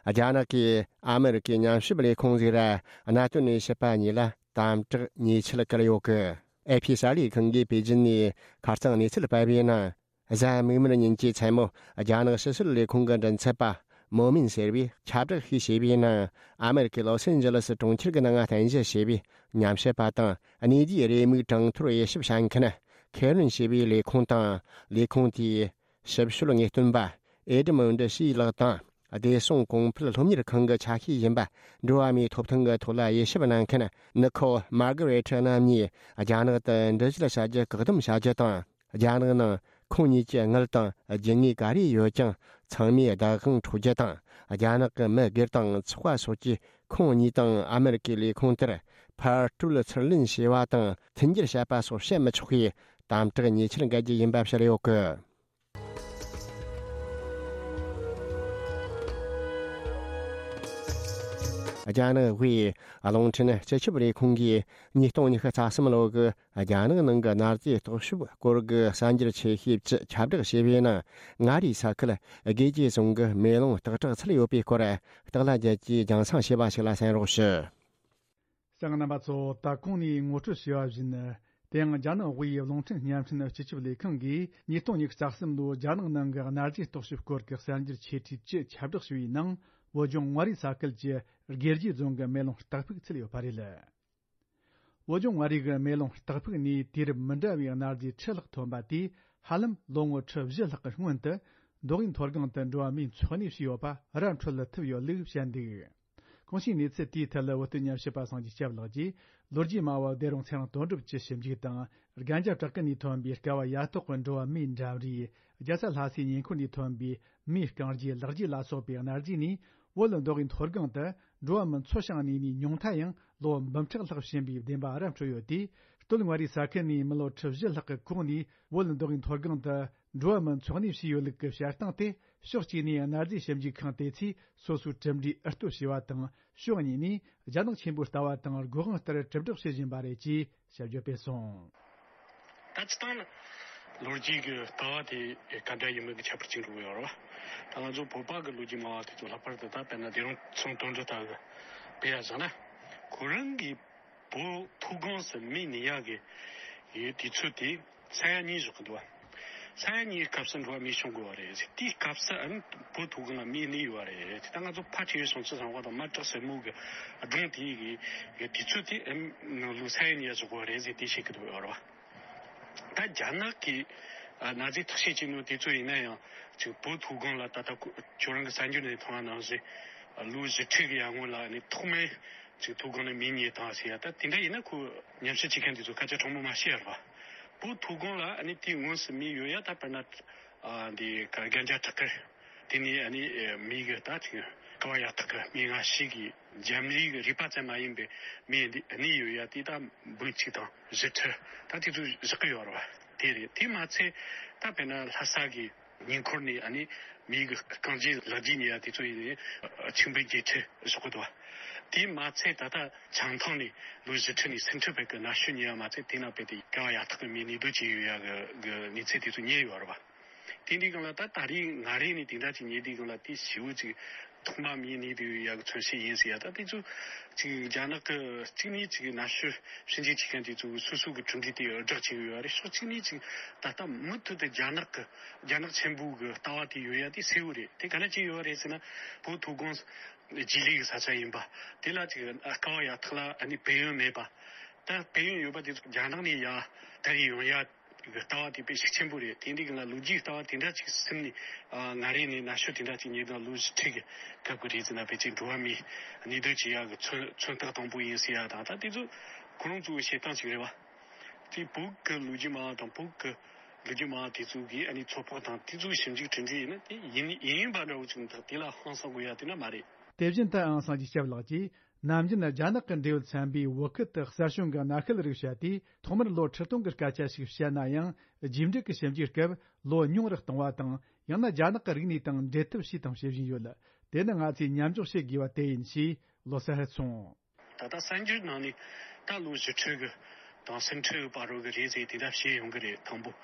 རྒྱ་ནག་གིས་ཨ་མི་རི་ཀའི་ཉམས་ཞིབ་ལས་ཁུངས་ཟེར་གནད་དོན་ནས་ཞིབ་པ་གཉིས་ལ་དམ་དྲག་ཉེས་ཆད་བཀལ་ཡོད་གི། ཨེ་ཕི་གསར་ལས་ཁང་གིས་པེ་ཅིན་ནས་ཁ་རྩང་གནས་ཚུལ་སྤེལ་བའི་ནང་། གཟའ་མིག་དམར་ཉིན་གྱི་མཚན་མོ་རྒྱ་ནག་ཕྱི་སྲིད་ལས་ཁུངས་ཀྱི་མགྲིན་ཚབ་པ་མོ་མིན་ཟེར་བས་ཁྱབ་བསྒྲགས་ཤིག་བྱས་པའི་ནང་། ཨ་མི་རི་ཀའི་ལོ་སན་ཇི་ལི་སི་གྲོང་ཁྱེར་གྱི་ནང་རྟེན་གཞི་བྱས་པའི་ཉམས་ཞིབ་པ་དང་གནས་དེའི་རེའུ་མིག་གྲངས་ཐོར་དབྱེ་ཞིབ་བྱ་མཁན་ཁེ་རིན་ཞེས་པའི་ལས་ཁུངས་དང་། ལས་ཁུངས་དེའི་ཞིབ་དཔྱོད་ངེས་སྟོན་པ་ཨེ་ཌི་མོན་ཌི་ཤི་ལགས་དང་། བདེ་སྲུང་གོང་འཕེལ་སློབ་གཉེར་ཁང་གི་ཆ་ཤས་ཡིན་པ། འགྲོ་བ་མིའི་ཐོབ་ཐང་གི་ཐོག་ལ་དབྱེ་ཞིབ་གནང་མཁན་ནི་ཁོ་མར་ག་རེ་ཊི་རྣམ་གཉིས་རྒྱ་ནག་ཏུ་འགྲུལ་བཞུད་བྱ་རྒྱུ་བཀག་སྡོམ་བྱ་རྒྱུ་དང་། རྒྱ་ནག་ནང་ཁོང་གཉིས་ཀྱི་དངུལ་དང་རྒྱུ་དངོས་ག་རེ་ཡོད་ཀྱང་ཚང་མའི་བདག་དབང་འཕྲོག་རྒྱུ་དང་། རྒྱ་ནག་གི་མི་སྒེར་དང་ཚོགས་པ་སོགས་ཀྱིས་ཁོང་གཉིས་དང་ཨ་མི་རི་ཀའི་ལས་ཁུངས་དེར་ཕར་སྤྲོད་ཚུར་ལེན་བྱས་པ་དང་མཐུན་འགྱུར་བྱས་པ་སོགས་བྱེད་མི་ཆོག་པའི་དམ་དྲག་ཉེས་ཆད་འགེལ་རྒྱུ་ཡིན་པ་བཤད་ཡོད་གི། རྒྱ་ནག་དབུས་རླུང་འཕྲིན་སྤྱི་ཁྱབ་ལས་ཁུངས་ཀྱིས་ཉིས་སྟོང་ཉི་ཤུ་རྩ་གསུམ་ལོ་གི་རྒྱ་ནག་ནང་གི་གནའ་རྫས་རྟོག་ཞིབ་སྐོར་གྱི་གསར་འགྱུར་ཆེ་ཤོས་བཅུ་ཁྱབ་བསྒྲགས་བྱས་པའི་ནང་། མངའ་རིས་ས་ཁུལ་དགེ་རྒྱས་རྫོང་གི་མེ་ལོང་སྟག་བྲག་ཚུད་ཡོད་པའི་སྐོར། སྟག་ལྷ་རྒྱལ་གྱིས་རྒྱང་སྲིང་བྱས་པ་ཞིག་ལ་གསན་རོགས་ཞུ། གསན་མཁན་རྣམ་པ་ཚོ། ད་གོང་ནས་ངོ་སྤྲོད་བྱས་པ་བཞིན། དེ་ཡང་རྒྱ་ནག་དབུས་རླུང་འཕྲིན་བརྙན་འཕྲིན་སྤྱི་ཁྱབ་ལས་ཁང་གིས་ཉིས་སྟོང་ཉི་ཤུ་རྩ་གསུམ་ལོའི་རྒྱ་ནག་ནང་གི་གནའ་རྫས་རྟོག་ཞིབ་སྐོར་གྱི་གསར་འགྱུར་ཆེ་གྲས་བཅུ་ཁྱབ་བསྒྲགས་བྱས་པའི་ནང་། བོད་ལྗོངས་མངའ་རིས་ས་ཁུལ་གྱི་དགེ་རྒྱས་རྫོང་གི་མེ་ལོང་སྟག་ཕུག་ཚུད་ཡོད་པ་རེད། བོད་ལྗོངས་མངའ་རིས་ཀྱི་མེ་ལོང་སྟག་ཕུག་ནས་དུས་རབས་མི་འདྲ་བའི་གནའ་རྫས་ཁྲི་ལྷག་ཐོན་པ་དེས་ཧ་ལམ་ལོ་ངོ་ཁྲི་བཞི་ལྷག་གི་སྔོན་དུ་མདོ་དབུས་མཐོ་སྒང་དུ་འགྲོ་བ་མིས་འཚོ་གནས་བྱས་ཡོད་པ་ར་འཕྲོད་ལ་ཐུབ་ཡོད་ལུགས་བཤད་འདུག། གོང་ཞུས་གནས་ཚུལ་དེའི་ཐད་ལ་བོད་དོན་ཉམས་ཞིབ་པ་སངས་རྒྱས་སྐྱབས་ལགས་ཀྱིས་ལོ་རྒྱུས་སྨྲ་བ་བདེ་རུང་ཚེ་རིང་དོན་གྲུབ་ཀྱི་ཞིབ་འཇུག་དང་། རྒན་རྒྱ་བྲག་དཀར་ནས་ཐོན་པའི་སྐལ་བ་ཡ་ཐོག་གི་འགྲོ་བ་མིའི་འགྲམ་རས། རྒྱལ་ས་ལྷ་སའི་ཉེ་འཁོར་ནས་ཐོན་པའི་མིའི་རྐང་རྗེས་ལག་རྗེས་ལ་སོགས་པའི་གནའ་རྫས་ནས། བོད་མདོ་དབུས་མཐོ་སྒང་དུ་འགྲོ་བ་མི་འཚོ་ཞིང་གནས་ནས་ཉུང་མཐའ་ཡང་ལོ་འབུམ་ཕྲག་ལྷག་ཕྱིན་པའི་བདེན་པ་ར་འཕྲོད་ཡོད་དེ། སྟོད་མངའ་རིས་ས་ཁུལ་ནས་མི་ལོ་ཁྲི་བཞི་ལྷག་གི་གོང་ནས་བོད་མདོ་དབུས་མཐོ་སྒང་དུ་འགྲོ་བ་མིའི་འཚོ་གནས་བྱས་ཡོད་ལུགས་ཀྱི་བཤད་སྟངས་དེ། ཕྱོགས་གཅིག་ནས་གནའ་རྫས་ཞིབ་འཇུག་ཁང་དེ་ཚོས་སོ་སོའི་གྲུབ་འབྲས་ཨུ་ལྟོ་བྱས་པ་དང་། ཕྱོགས་གཉིས་ནས་རྒྱ་ནག་ཆེན་པོའི་ལྟ་བ་དང་སྒོ་དབང་ལྟར་དྲིལ་བསྒྲགས་བྱེད་བཞིན་པ་རེད་ཅེས་ཞིབ་བརྗོད་སྤེལ་སོང་། ད་སྤྱིར་བཏང་ལ་ལོ་རྒྱུས་ཀྱི་ལྟ་བ་དེ་ག་འདྲ་ཡིན་མིན་གྱི་ཁྱད་པར་ཅིག་འགྲོ་གི་ཡོད་རེད་བ། ད་ང་ཚོ་བོད་པ་གི་ལོ་རྒྱུས་སྨྲ་བ་དེ་ཚོ་ལྷག་པར་དུ་ད་དཔེར་ན་བདེ་རུང་ཚེ་རིང་དོན་གྲུབ་ལྟ་བུ་དཔེ་ཡ་བཞག་ན། ཁོ་རང་གིས་བོད་མཐོ་སྒང་སུ་མི་གནས་ཡག་གི་ཡོད་དུས་ཚོད་དེ་ས་ཡ་གཉིས་བཞག་གི་འདུག་བ། ས་ཡ་གཉིས་སྐབས་སུ་འགྲོ་བ་མི་བྱུང་དགོས་བ་རེད། དེའི་སྐབས་སུ་ཨ་ནི་བོད་མཐོ་སྒང་ལ་མི་གནས་ཡོད་བ་རེད། ད་ང་ཚོ་ཕལ་ཆེ་བའི་བྱང་ཆུབ་སེམས་དཔའ་དང་དམར་བྲག་སེར་མོ་གི་སྒྲུང་དེ་གི་དུས་ཚོད་དེ་ཨ་ནི་ནང་ལོ་ས་ཡ་གཉིས་ཡ་བཞག་དགོས་བ་རེད་ཟེར་དེ་བཤད་གི་འདུག་ཡོད་རེད་བ། ད་རྒྱ་ནག་གི་ཨ་གནའ་རྫས་བརྟག་དཔྱད་བྱས་ནོ་དེ་ཚོ་ཡིན་ན་ཡང་ཅིག་བོད་མཐོ་སྒང་ལ་ད་ལྟ་ཁོ་ཁྱོད་རང་གི་གསར་འགྱུར་ནས་མཐོང་བ་ནང་བཞིན། ལོ་བཞི་ཁྲི་གི་ཡར་སྔོན་ལ་ནི་ཐོག་མའི་ཅིག་མཐོ་སྒང་ནས་མེ་རྙེད་བཏང་ཟེར་ཡ། ད་དེ་འདྲ་ཡིན་ན་ཁོ་ཉམས་ཞིབ་བྱེད་མཁན་དེ་ཚོ་སྐད་ཆ་དྲང་མོ་མ་བཤད་ཡ་རེད་པ། བོད་མཐོ་སྒང་ལ་ནི་དེའི་ངོས་སུ་མེ་ཡོད་ཡ། ད་དཔེར་ན་ཨ་འདི་ག་རྒན་རྒྱ་བྲག་དཀར། དེ་ནས་ཨ་ནི་མེ་གི་ད་ཅིག་ཀ་བ་ཡ་ཐག་གི་མེ་ང་ཤི་གི་འཇམ་རིགས་གི་རིག་པ་ཙམ་མ་ཡིན་པའི་མེ་འདི་གནས་ཡོད་ཡ། དེ་ད་འབུམ་གཅིག་དང་བཞི་ཁྲི་ད་དེ་ཚོ་བཞག་གི་ཡོད་རེད་པ། དེ་རེད། དེ་མ་ཚད་ད་དཔེར་ན་ལྷ་ས་གི་ཉེ་འཁོར་ནས་ཨ་ནི་མེ་གི་རྐང་རྗེས་ལག་རྗེས་ཉེ་ཡ་དེ་ཚོ་ཡིན་ནའི་ཆིག་འབུམ་བརྒྱད་ཁྲི་བཞག་གི་འདུག་པ། དེ་མ་ཚད་ད་ལྟ་བྱང་ཐང་ནས་ལོ་བཞི་ཁྲི་ནས་སུམ་ཁྲི་བར་གི་ན་གཞོན་ཉེ་ཡ་མ་ཚད་དེ་ན་དཔེ་དེ་ཀ་བ་ཡ་ཐག་གི་མེ་གནས་སྡོད་བྱས་ཡོད་ཡ་གི་གི་གནས་ཚུལ་དེ་ཚོ་རྙེད་ཡོད་རེད་པ། དེ་འདྲའི་སྒང་ལ་ད་ད་རེས་ང་རེ་ནས་དེ་འདྲ་ཅིག་རྙེད་དུས་སྒང་ལ་དེ་ཞེ་པོ་ཅིག་ཐོག་མ་མེ་གནས་དུས་ཡག་གི་མཚོན་བྱེད་ཡིན་ཟེར་ཡ། ད་དེ་ཚོ་ཅིག་རྒྱ་ནག་གི་གཅིག་ནས་ཅིག་ན་གཞོན་ཞིབ་འཇུག་བྱེད་མཁན་དེ་ཚོ་སོ་སོ་གི་གྲུབ་འབྲས་དེ་བསྒྲགས་བྱེད་ཀྱི་ཡོད་རེད། ཕྱོགས་གཅིག་ནས་ཅིག་ད་ལྟ་མུ་མཐུད་དུ་རྒྱ་ནག་གི་རྒྱ་ནག་ཆེན་པོ་གི་ལྟ་བ་དེ་ཡོད་ཡ་དེ་གསལ་བོ་རེད། དེ་ག་ནས་ཅི་ཡོད་རེད་ཟེར་ན། བོད་མཐོ་སྒང་རྗེས་ལུས་ཀྱི་ས་ཆ་ཡིན་པ། དེ་ལ་ཅིག་ཀ་བ་ཡ་ཐག་ལ་ཨ་ནི་བལ་ཡུལ་མེད་པ། ད་བལ་ཡུལ་ཡོད་པ་དེ་ཚོ་རྒྱ་ནག་ནས་ཡ་དར་ཡོང་ཡ། གི་ལྟ་བ་དེ་དཔེ་ཤུགས་ཆེན་པོ་རེད། དེ་འདྲའི་སྒང་ལ་ལོ་རྒྱུས་ལྟ་བ་དེ་འདྲ་ཅིག་སེམས་ནས་ཨ་ང་རེ་ནས་ན་གཞོན་དེ་འདྲ་ཅིག་ཉིས་སྟོང་ལོ་བཞི་ཁྲི་གི་སྐབས་ཀྱི་རེད་ཟེར་ན། ཕལ་ཆེར་འགྲོ་བ་མིའི་གནས་སྡོད་བྱེད་ཡག་གི་མཚོན་མཚོན་རྟགས་དང་པོ་ཡིན་ཟེར་ཡག་དང་། ད་དེ་ཚོ་ཁོ་རང་ཚོའི་བཤད་སྟངས་ཅིག་རེད་བ། དེ་བོད་ཀྱི་ལོ་རྒྱུས་མང་བ་དང་བོད་ཀྱི་ལོ་རྒྱུས་མང་བ་དེ་ཚོ་གིས་ཨ་ནི་ཚོད་དཔག་དང་དེ་ཚོའི་ཞིབ་འཇུག་གྲུབ་འབྲས་ཡིན་ན། དེ་ཡིན་ཡིན་ཡིན་པ་འདྲ་བོ་ཅིག་མི་འདུག་དེ་ལ་ཧང་སང་དགོས་ཡ་དེ་འདྲ་མ་རེད། དེ་བཞིན་དུ་ཨང་སང་གི་སྐྱབས་ལགས་ཀྱིས། ནམ་རྒྱུན་རྒྱ་ནག་གི་འབྲེལ་ཡོད་ཚན་པས་བོད་ཁུལ་དུ་གསར་བྱུང་གི་གནའ་ཤུལ་རིགས་བཤད་དུས། ཐོག་མར་ལོ་ཁྲི་སྟོང་གི་སྐད་ཆ་ཞིག་བཤད་ན་ཡང་། རྗེས་འབྲེལ་གྱི་ཞིབ་འཇུག་སྐབས་ལོ་ཉུང་རུ་གཏོང་བ་དང་། ཡང་ན་རྒྱ་ནག་གི་རིག་གནས་དང་འབྲེལ་ཐབས་བྱས་དང་བྱེད་བཞིན་ཡོད། དེ་ནི་ང་ཚོས་མཉམ་འཇོག་བྱེད་དགོས་པ་དེ་ཡིན་ཞེས་ལོ་གསར་གསུངས། ད་ལྟ་གསར་འགྱུར་ནང་ནས་ད་ལོ་བཞི་ཁྲི་གི་དང་སུམ་ཁྲི་བར་རོ་གི་རེད་ཟེར་དེ་འདྲ་བཤད་ཡོང་གི་རེད། དང་པོ།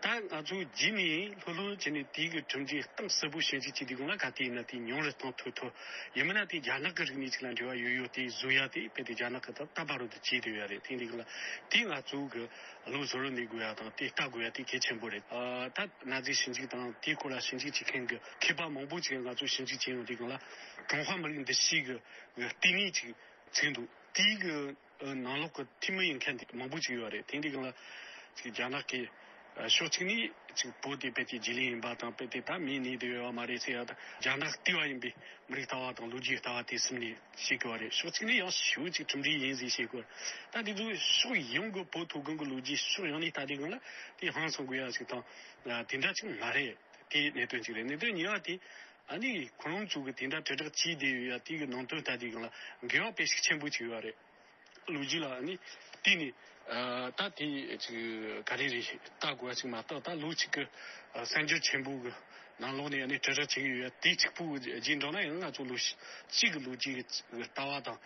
ད་ང་ཚོ་རྗེས་ནས་ལྷོད་ལྷོད་བྱས་ནས་དེའི་གི་གྲུབ་འབྲས་གཏིང་ཟབ་པོ་ཞིབ་འཇུག་བྱེད་དུས་སྒང་ལ་ག་དུས་ཡིན་ན་དེ་ཉུང་རུ་གཏོང་ཐུབ་ཐུབ། ཡིན་མིན་ན་དེ་རྒྱ་ནག་གི་རིག་གནས་ཅིག་ལ་འབྲེལ་བ་ཡོད་ཡོད་དེ་བཟོ་ཡ་དེ་དཔེ་དེ་རྒྱ་ནག་གི་ད་ལྟ་བར་དུ་བྱས་བསྡད་ཡོད་རེད། དེ་འདི་སྒང་ལ་དེ་ང་ཚོ་གི་བློ་གཟུ་བོར་གནས་དགོས་ཡ་དང་དེ་ལྟ་དགོས་ཡ་དེ་གལ་ཆེན་པོ་རེད། ཨ་ད་གནའ་རྫས་ཞིབ་འཇུག་དང་དེའི་སྐོར་ལ་ཞིབ་འཇུག་བྱེད་མཁན་གི་མཁས་པ་མང་པོ་ཅིག་ང་ཚོ་ཞིབ་འཇུག་བྱས་ཡོང་དུས་སྒང་ལ་ཀྲུང་ཧྭ་མི་རིགས་འདུ་ཤེས་གི་ལྟེ་གནས་ཅིག་ཚུད་འདུག་དེའི་གི་ནང་ལོགས་ཀྱི་འཐུས་མི་ཡིན་མཁན་དེ་མང་པོ་ཅིག་ཡོད་རེད། དེ་འདི་སྒང་ལ་ཅིག་རྒྱ་ནག་གི་ཕྱོགས་གཅིག་ནས་ཅིག་བོད་དེ་དཔེ་དེ་རྗེས་ལུས་ཡིན་པ་དང་། དཔེ་དེ་ད་མེ་གནས་བསྡད་ཡོད་པ་མ་རེད་ཟེར་ཡ་དང་། རྒྱ་ནག་ལྟེ་བ་ཡིན་པའི་མི་རིགས་ལྟ་བ་དང་ལོ་རྒྱུས་ལྟ་བ་དེ་སེམས་ནས་བཤད་དགོས་པ་རེད། ཕྱོགས་གཅིག་ནས་ཡང་ཞེ་པོ་ཅིག་གྲུབ་འབྲས་ཡིན་ཟེར་བཤད་དགོས། ད་དེ་ཚོ་ཕྱོགས་ཡོངས་ཀྱི་བོད་མཐོ་སྒང་གི་ལོ་རྒྱུས་ཕྱོགས་ཡོངས་ནས་ལྟ་དུས་སྒང་ལ་དེ་ཧང་སང་དགོས་ཡ་ཞིག་དང་དེ་འདྲ་ཅིག་མ་རེད། དེ་གནད་དོན་གཅིག་རེད། གནད་དོན་གཉིས་པ་དེ། ཨ་ནི་ཁོ་རང་ཚོ་གི་དེ་འདྲ་དྲིལ་བསྒྲགས་བྱས་བསྡད་ཡོད་ཡ་དེ་གི་ནང་དོན་ལྟ་དུས་སྒང་ལ་འགལ་བ་དཔེ་ཤུགས་ཆེན་པོ་ཅིག་ཡོད་རེད། ལོ་རྒྱུས་ལ་ཨ་ནི་བལྟས་ནས་ཨ་ད་དེ་ཅིག་ག་རེ་རེད་ལྟ་དགོས་པ་ཅིག་མ་གཏོགས། ད་ལོ་གཅིག་གི་ཨ་གསར་འགྱུར་ཆེན་པོ་གི་ནང་ལོགས་ནས་ཨ་ནི་དྲིལ་བསྒྲགས་བྱེད་ཀྱི་ཡོད་ཡ་དེ་གཅིག་པུ་རྗེས་འགྲོ་ན་ཡང་ང་ཚོ་ལོ་གཅིག་གི་ལོ་རྒྱུས་ཀྱི་ལྟ་བ་དང་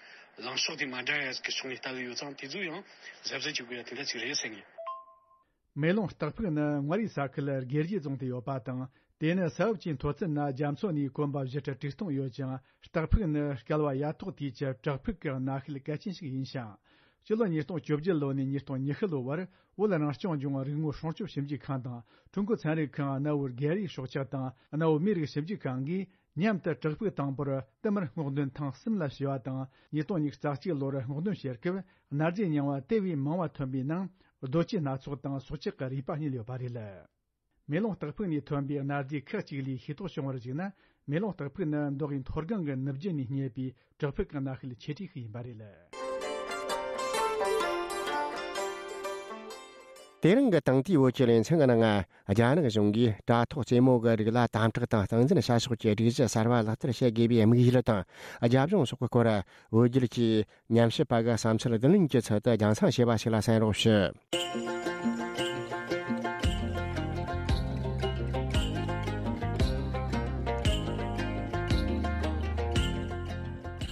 ལངས་ཕྱོགས་དེ་མ་འདྲ་ཡ་གི་ཕྱོགས་ནས་ལྟ་གི་ཡོད་ཙང་། དེ་ཚོ་ཡང་གཟབ་གཟབ་བྱེད་དགོས་ཡ་དེ་འདྲ་ཅིག་རེད་བསམ་གི། མེ་ལོང་སྟག་ཕུག་ནི་མངའ་རིས་ས་ཁུལ་དགེ་བཤེས་རྫོང་དུ་ཡོད་པ་དང་། དེ་ནི་ས་བབ་ཀྱི་མཐོ་ཚད་ནི་རྒྱ་མཚོ་ནས་གོམ་པ་བཞི་ཁྲི་དྲུག་སྟོང་ཡོད་ཅིང་། སྟག་ཕུག་ནི་བསྐལ་བ་ཡ་ཐོག་དུས་ཀྱི་བྲག་ཕུག་གི་གནའ་ཤུལ་གལ་ཆེན་ཞིག་ཡིན་ཞིང་། སྤྱི་ལོ་ཉིས་སྟོང་བཅོ་བརྒྱད་ལོ་ནས་ཉིས་སྟོང་ཉི་ཤུ་ལོ་བར་བོད་རང་སྐྱོང་ལྗོངས་རིག་དངོས་སྲུང་སྐྱོབ་ཞིབ་འཇུག་ཁང་དང་། ཀྲུང་གོ་ཚན་རིག་ཁང་གནའ་བོའི་རྒྱལ་རིགས་སྲོག་ཆགས་དང་གནའ་བོའི་མིའི་རིགས་ཞིབ་འཇུག་ཁང་གིས། མཉམ་དུ་བྲག་ཕུག་དང་པོར་བསྟུད་མར་སྔོག་འདོན་ཐེངས་གསུམ་ལ་བྱས་པ་དང་། ཉིས་སྟོང་ཉི་ཤུ་རྩ་གཅིག་ལོར་སྔོག་འདོན་བྱེད་སྐབས་གནའ་རྫས་རྙིང་བ་དེ་བས་མང་བ་ཐོན་པའི་ནང་རྡོ་སྐྱེས་སྣ་ཚོགས་དང་སྲོག་ཆགས་ཀྱི་རུས་པ་རྙེད་ཡོད་པ་རེད། མེ་ལོང་སྟག་ཕུག་ནས་ཐོན་པའི་གནའ་རྫས་ཁག་ཅིག་ལས་ཤེས་རྟོགས་བྱུང་བར་གཞིགས་ན། མེ་ལོང་སྟག་ཕུག་ནི་མདོ་དབུས་མཐོ་སྒང་གི་ནུབ་རྒྱུད་ནས་རྙེད་པའི་བྲག་ཕུག་གི་གནའ་ཤུལ་ཆེ་གྲས་ཤིག་ཡིན་པ་རེད། དེ་རིང་གི་དེང་དུས་བོད་ཀྱི་ལེ་ཚན་གྱི་ནང་ང་། རྒྱ་ནག་གཞུང་གིས་དྲ་ཐོག་རྩེད་མོ་གི་རིགས་ལ་དམ་དྲག་དང་སྟངས་འཛིན་བྱ་ཕྱོགས་ཀྱི་སྒྲིག་གཞི་གསར་བ་ལག་བསྟར་བྱེད་དགོས་པའི་དམིགས་ཡུལ་དང་། རྒྱབ་ལྗོངས་སོགས་ཀྱི་སྐོར། བོད་བརྒྱུད་ཀྱི་ཉམས་ཞིབ་པ་གི་བསམ་ཚུལ་བསྡུ་ལེན་གྱི་ཚུལ་དུ་རྒྱང་སྲིང་བྱས་པ་ཞིག་ལ་གསན་རོགས་ཞུ།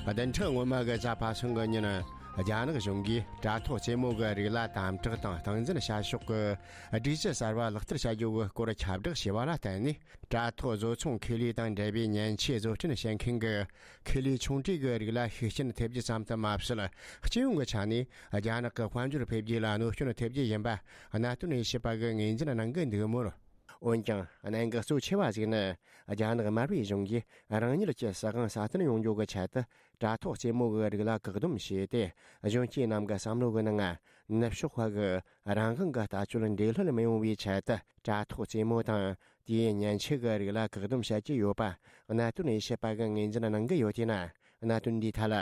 བདུན་ཕྲག་སྔོན་མ་གི་གཟའ་པ་སངས་གི་ཉིན། རྒྱ་ནག་གཞུང་གིས་དྲ་ཐོག་རྩེད་མོ་གི་རིགས་ལ་དམ་དྲག་དང་སྟངས་འཛིན་བྱ་ཕྱོགས་ཀྱི་སྒྲིག་གཞི་གསར་བ་ལག་བསྟར་བྱ་རྒྱུ་གི་སྐོར་ཁྱབ་བསྒྲགས་བྱས་པ་ལ་བརྟེན་ནས། དྲ་ཐོག་བཟོ་ཚོང་ཁེ་ལས་དང་འབྲེལ་བའི་མཉེན་ཆས་བཟོ་སྐྲུན་བྱེད་མཁན་གྱི་ཁེ་ལས་ཆུང་གྲས་ཀྱི་རིགས་ལ་ཤུགས་རྐྱེན་ཐེབས་རྒྱུ་ཙམ་དུ་མ་ཟད། སྤྱི་ཡོངས་ཀྱི་ཆ་ནས་རྒྱ་ནག་གི་དཔལ་འབྱོར་འཕེལ་རྒྱས་ལ་གནོད་སྐྱོན་ཐེབས་རྒྱུ་ཡིན་པ་གནད་དོན་དབྱེ་ཞིབ་པ་གིས་ངོས་འཛིན་གནང་གི་འདུག་མོད། འོན་ཀྱང་གནད་འགག་གཙོ་ཆེ་བ་ཞིག་ནི། རྒྱ་ནག་དམར་པོའི་གཞུང་གིས་རང་ཉིད་ཀྱི་སྲིད་དབང་སྲ་བརྟན་ཡོང་རྒྱུ་གི་ཆེད་དུ། དྲ་ཐོག་རྩེད་མོ་གི་རིགས་ལ་བཀག་སྡོམ་བྱས་ཏེ། གཞོན་སྐྱེས་རྣམས་ཀྱི་བསམ་བློ་གི་ནང་ང་ ནུབ་ཕྱོགས་པ་གི་རང་དབང་གི་ལྟ་སྤྱོད་འདྲེས་ལྷོད་མི་ཡོང་བའི་ཆེད་དུ་དྲ་ཐོག་རྩེད་མོ་དང་དེའི་མཉེན་ཆས་ཀྱི་རིགས་ལ་བཀག་སྡོམ་བྱེད་ཀྱི་ཡོད་པ་གནད་དོན་དབྱེ་ཞིབ་པ་གིས་ངོས་འཛིན་གནང་གི་ཡོད་དེ་ན། གནད་དོན་འདིའི་ཐད་ལ་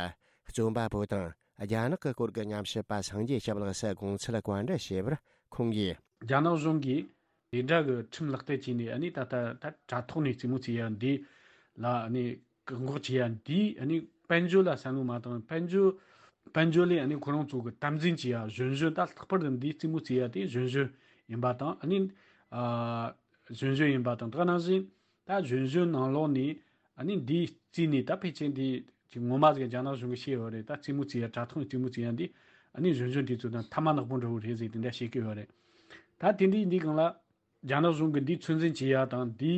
རྩོམ་པ་པོ་དང་རྒྱ་ནག་གི་སྐོར་གྱི་ཉམས་ཞིབ་པ་སངས་རྒྱས་སྐྱབས་ལགས་སུ་དགོངས་ཚུལ་བཀའ་འདྲི་བྱས་པར་ཁོང་གིས། རྒྱ་ནག་གཞུང་གིས་དེ་འདྲ་གི་ཁྲིམས་ལག་བསྟར་བྱས་ནས་ཨ་ནི་ད་ལྟ་ད་དྲ་ཐོག་ནས་རྩེད་མོ་རྩེ་ཡ་འདི་ལ་ཨ་ནི་བཀག་འགོག་བྱེད་ཡ་འདི་ཨ་ནི་དཔལ་འབྱོར་ལ་བསམ་བློ་མ་བཏང་། དཔལ་འབྱོར་དཔལ་འབྱོར་ལས་ཨ་ནི་ཁོ་རང་ཚོ་གི་དམ་འཛིན་བྱེད་ཡ་གཞོན་གཞོན་ད་ལྷག་པར་དུ་འདི་རྩེད་མོ་རྩེ་ཡ་དེ་གཞོན་གཞོན་ཡིན་པ་དང་ཨ་ནི་ཨ་གཞོན་གཞོན་ཡིན་པ་དང་། ད་ག་ནང་བཞིན་ད་གཞོན་གཞོན་ནང་ལོགས་ནས་ཨ་ནི་འདི་རྩེས་ནས་ད་ཕལ་ཆེར་འདི་ཅིག་ངོ་མ་ཟིག་རྒྱ་ནག་གཞུང་གིས་ཤེས་ཡོད་རེད། ད་རྩེད་མོ་རྩེ་ཡ་དྲ་ཐོག་ནས་རྩེད་མོ་རྩེ་ཡ་འདི་ཨ་ནི་གཞོན་གཞོན་དེ་ཚོ་དང་ཐ་མག་ནག་པོ་འདྲ་བོ་རེད་ཟེར་དེ་འདྲ་བཤད་ཀྱི་ཡོད་རེད། ད་དེ་འདྲའི་འདི་སྒང་ལ་རྒྱ་ནག་གཞུང་གིས་འདི་ཚོད་འཛིན་བྱེད་ཡ་དང་འདི་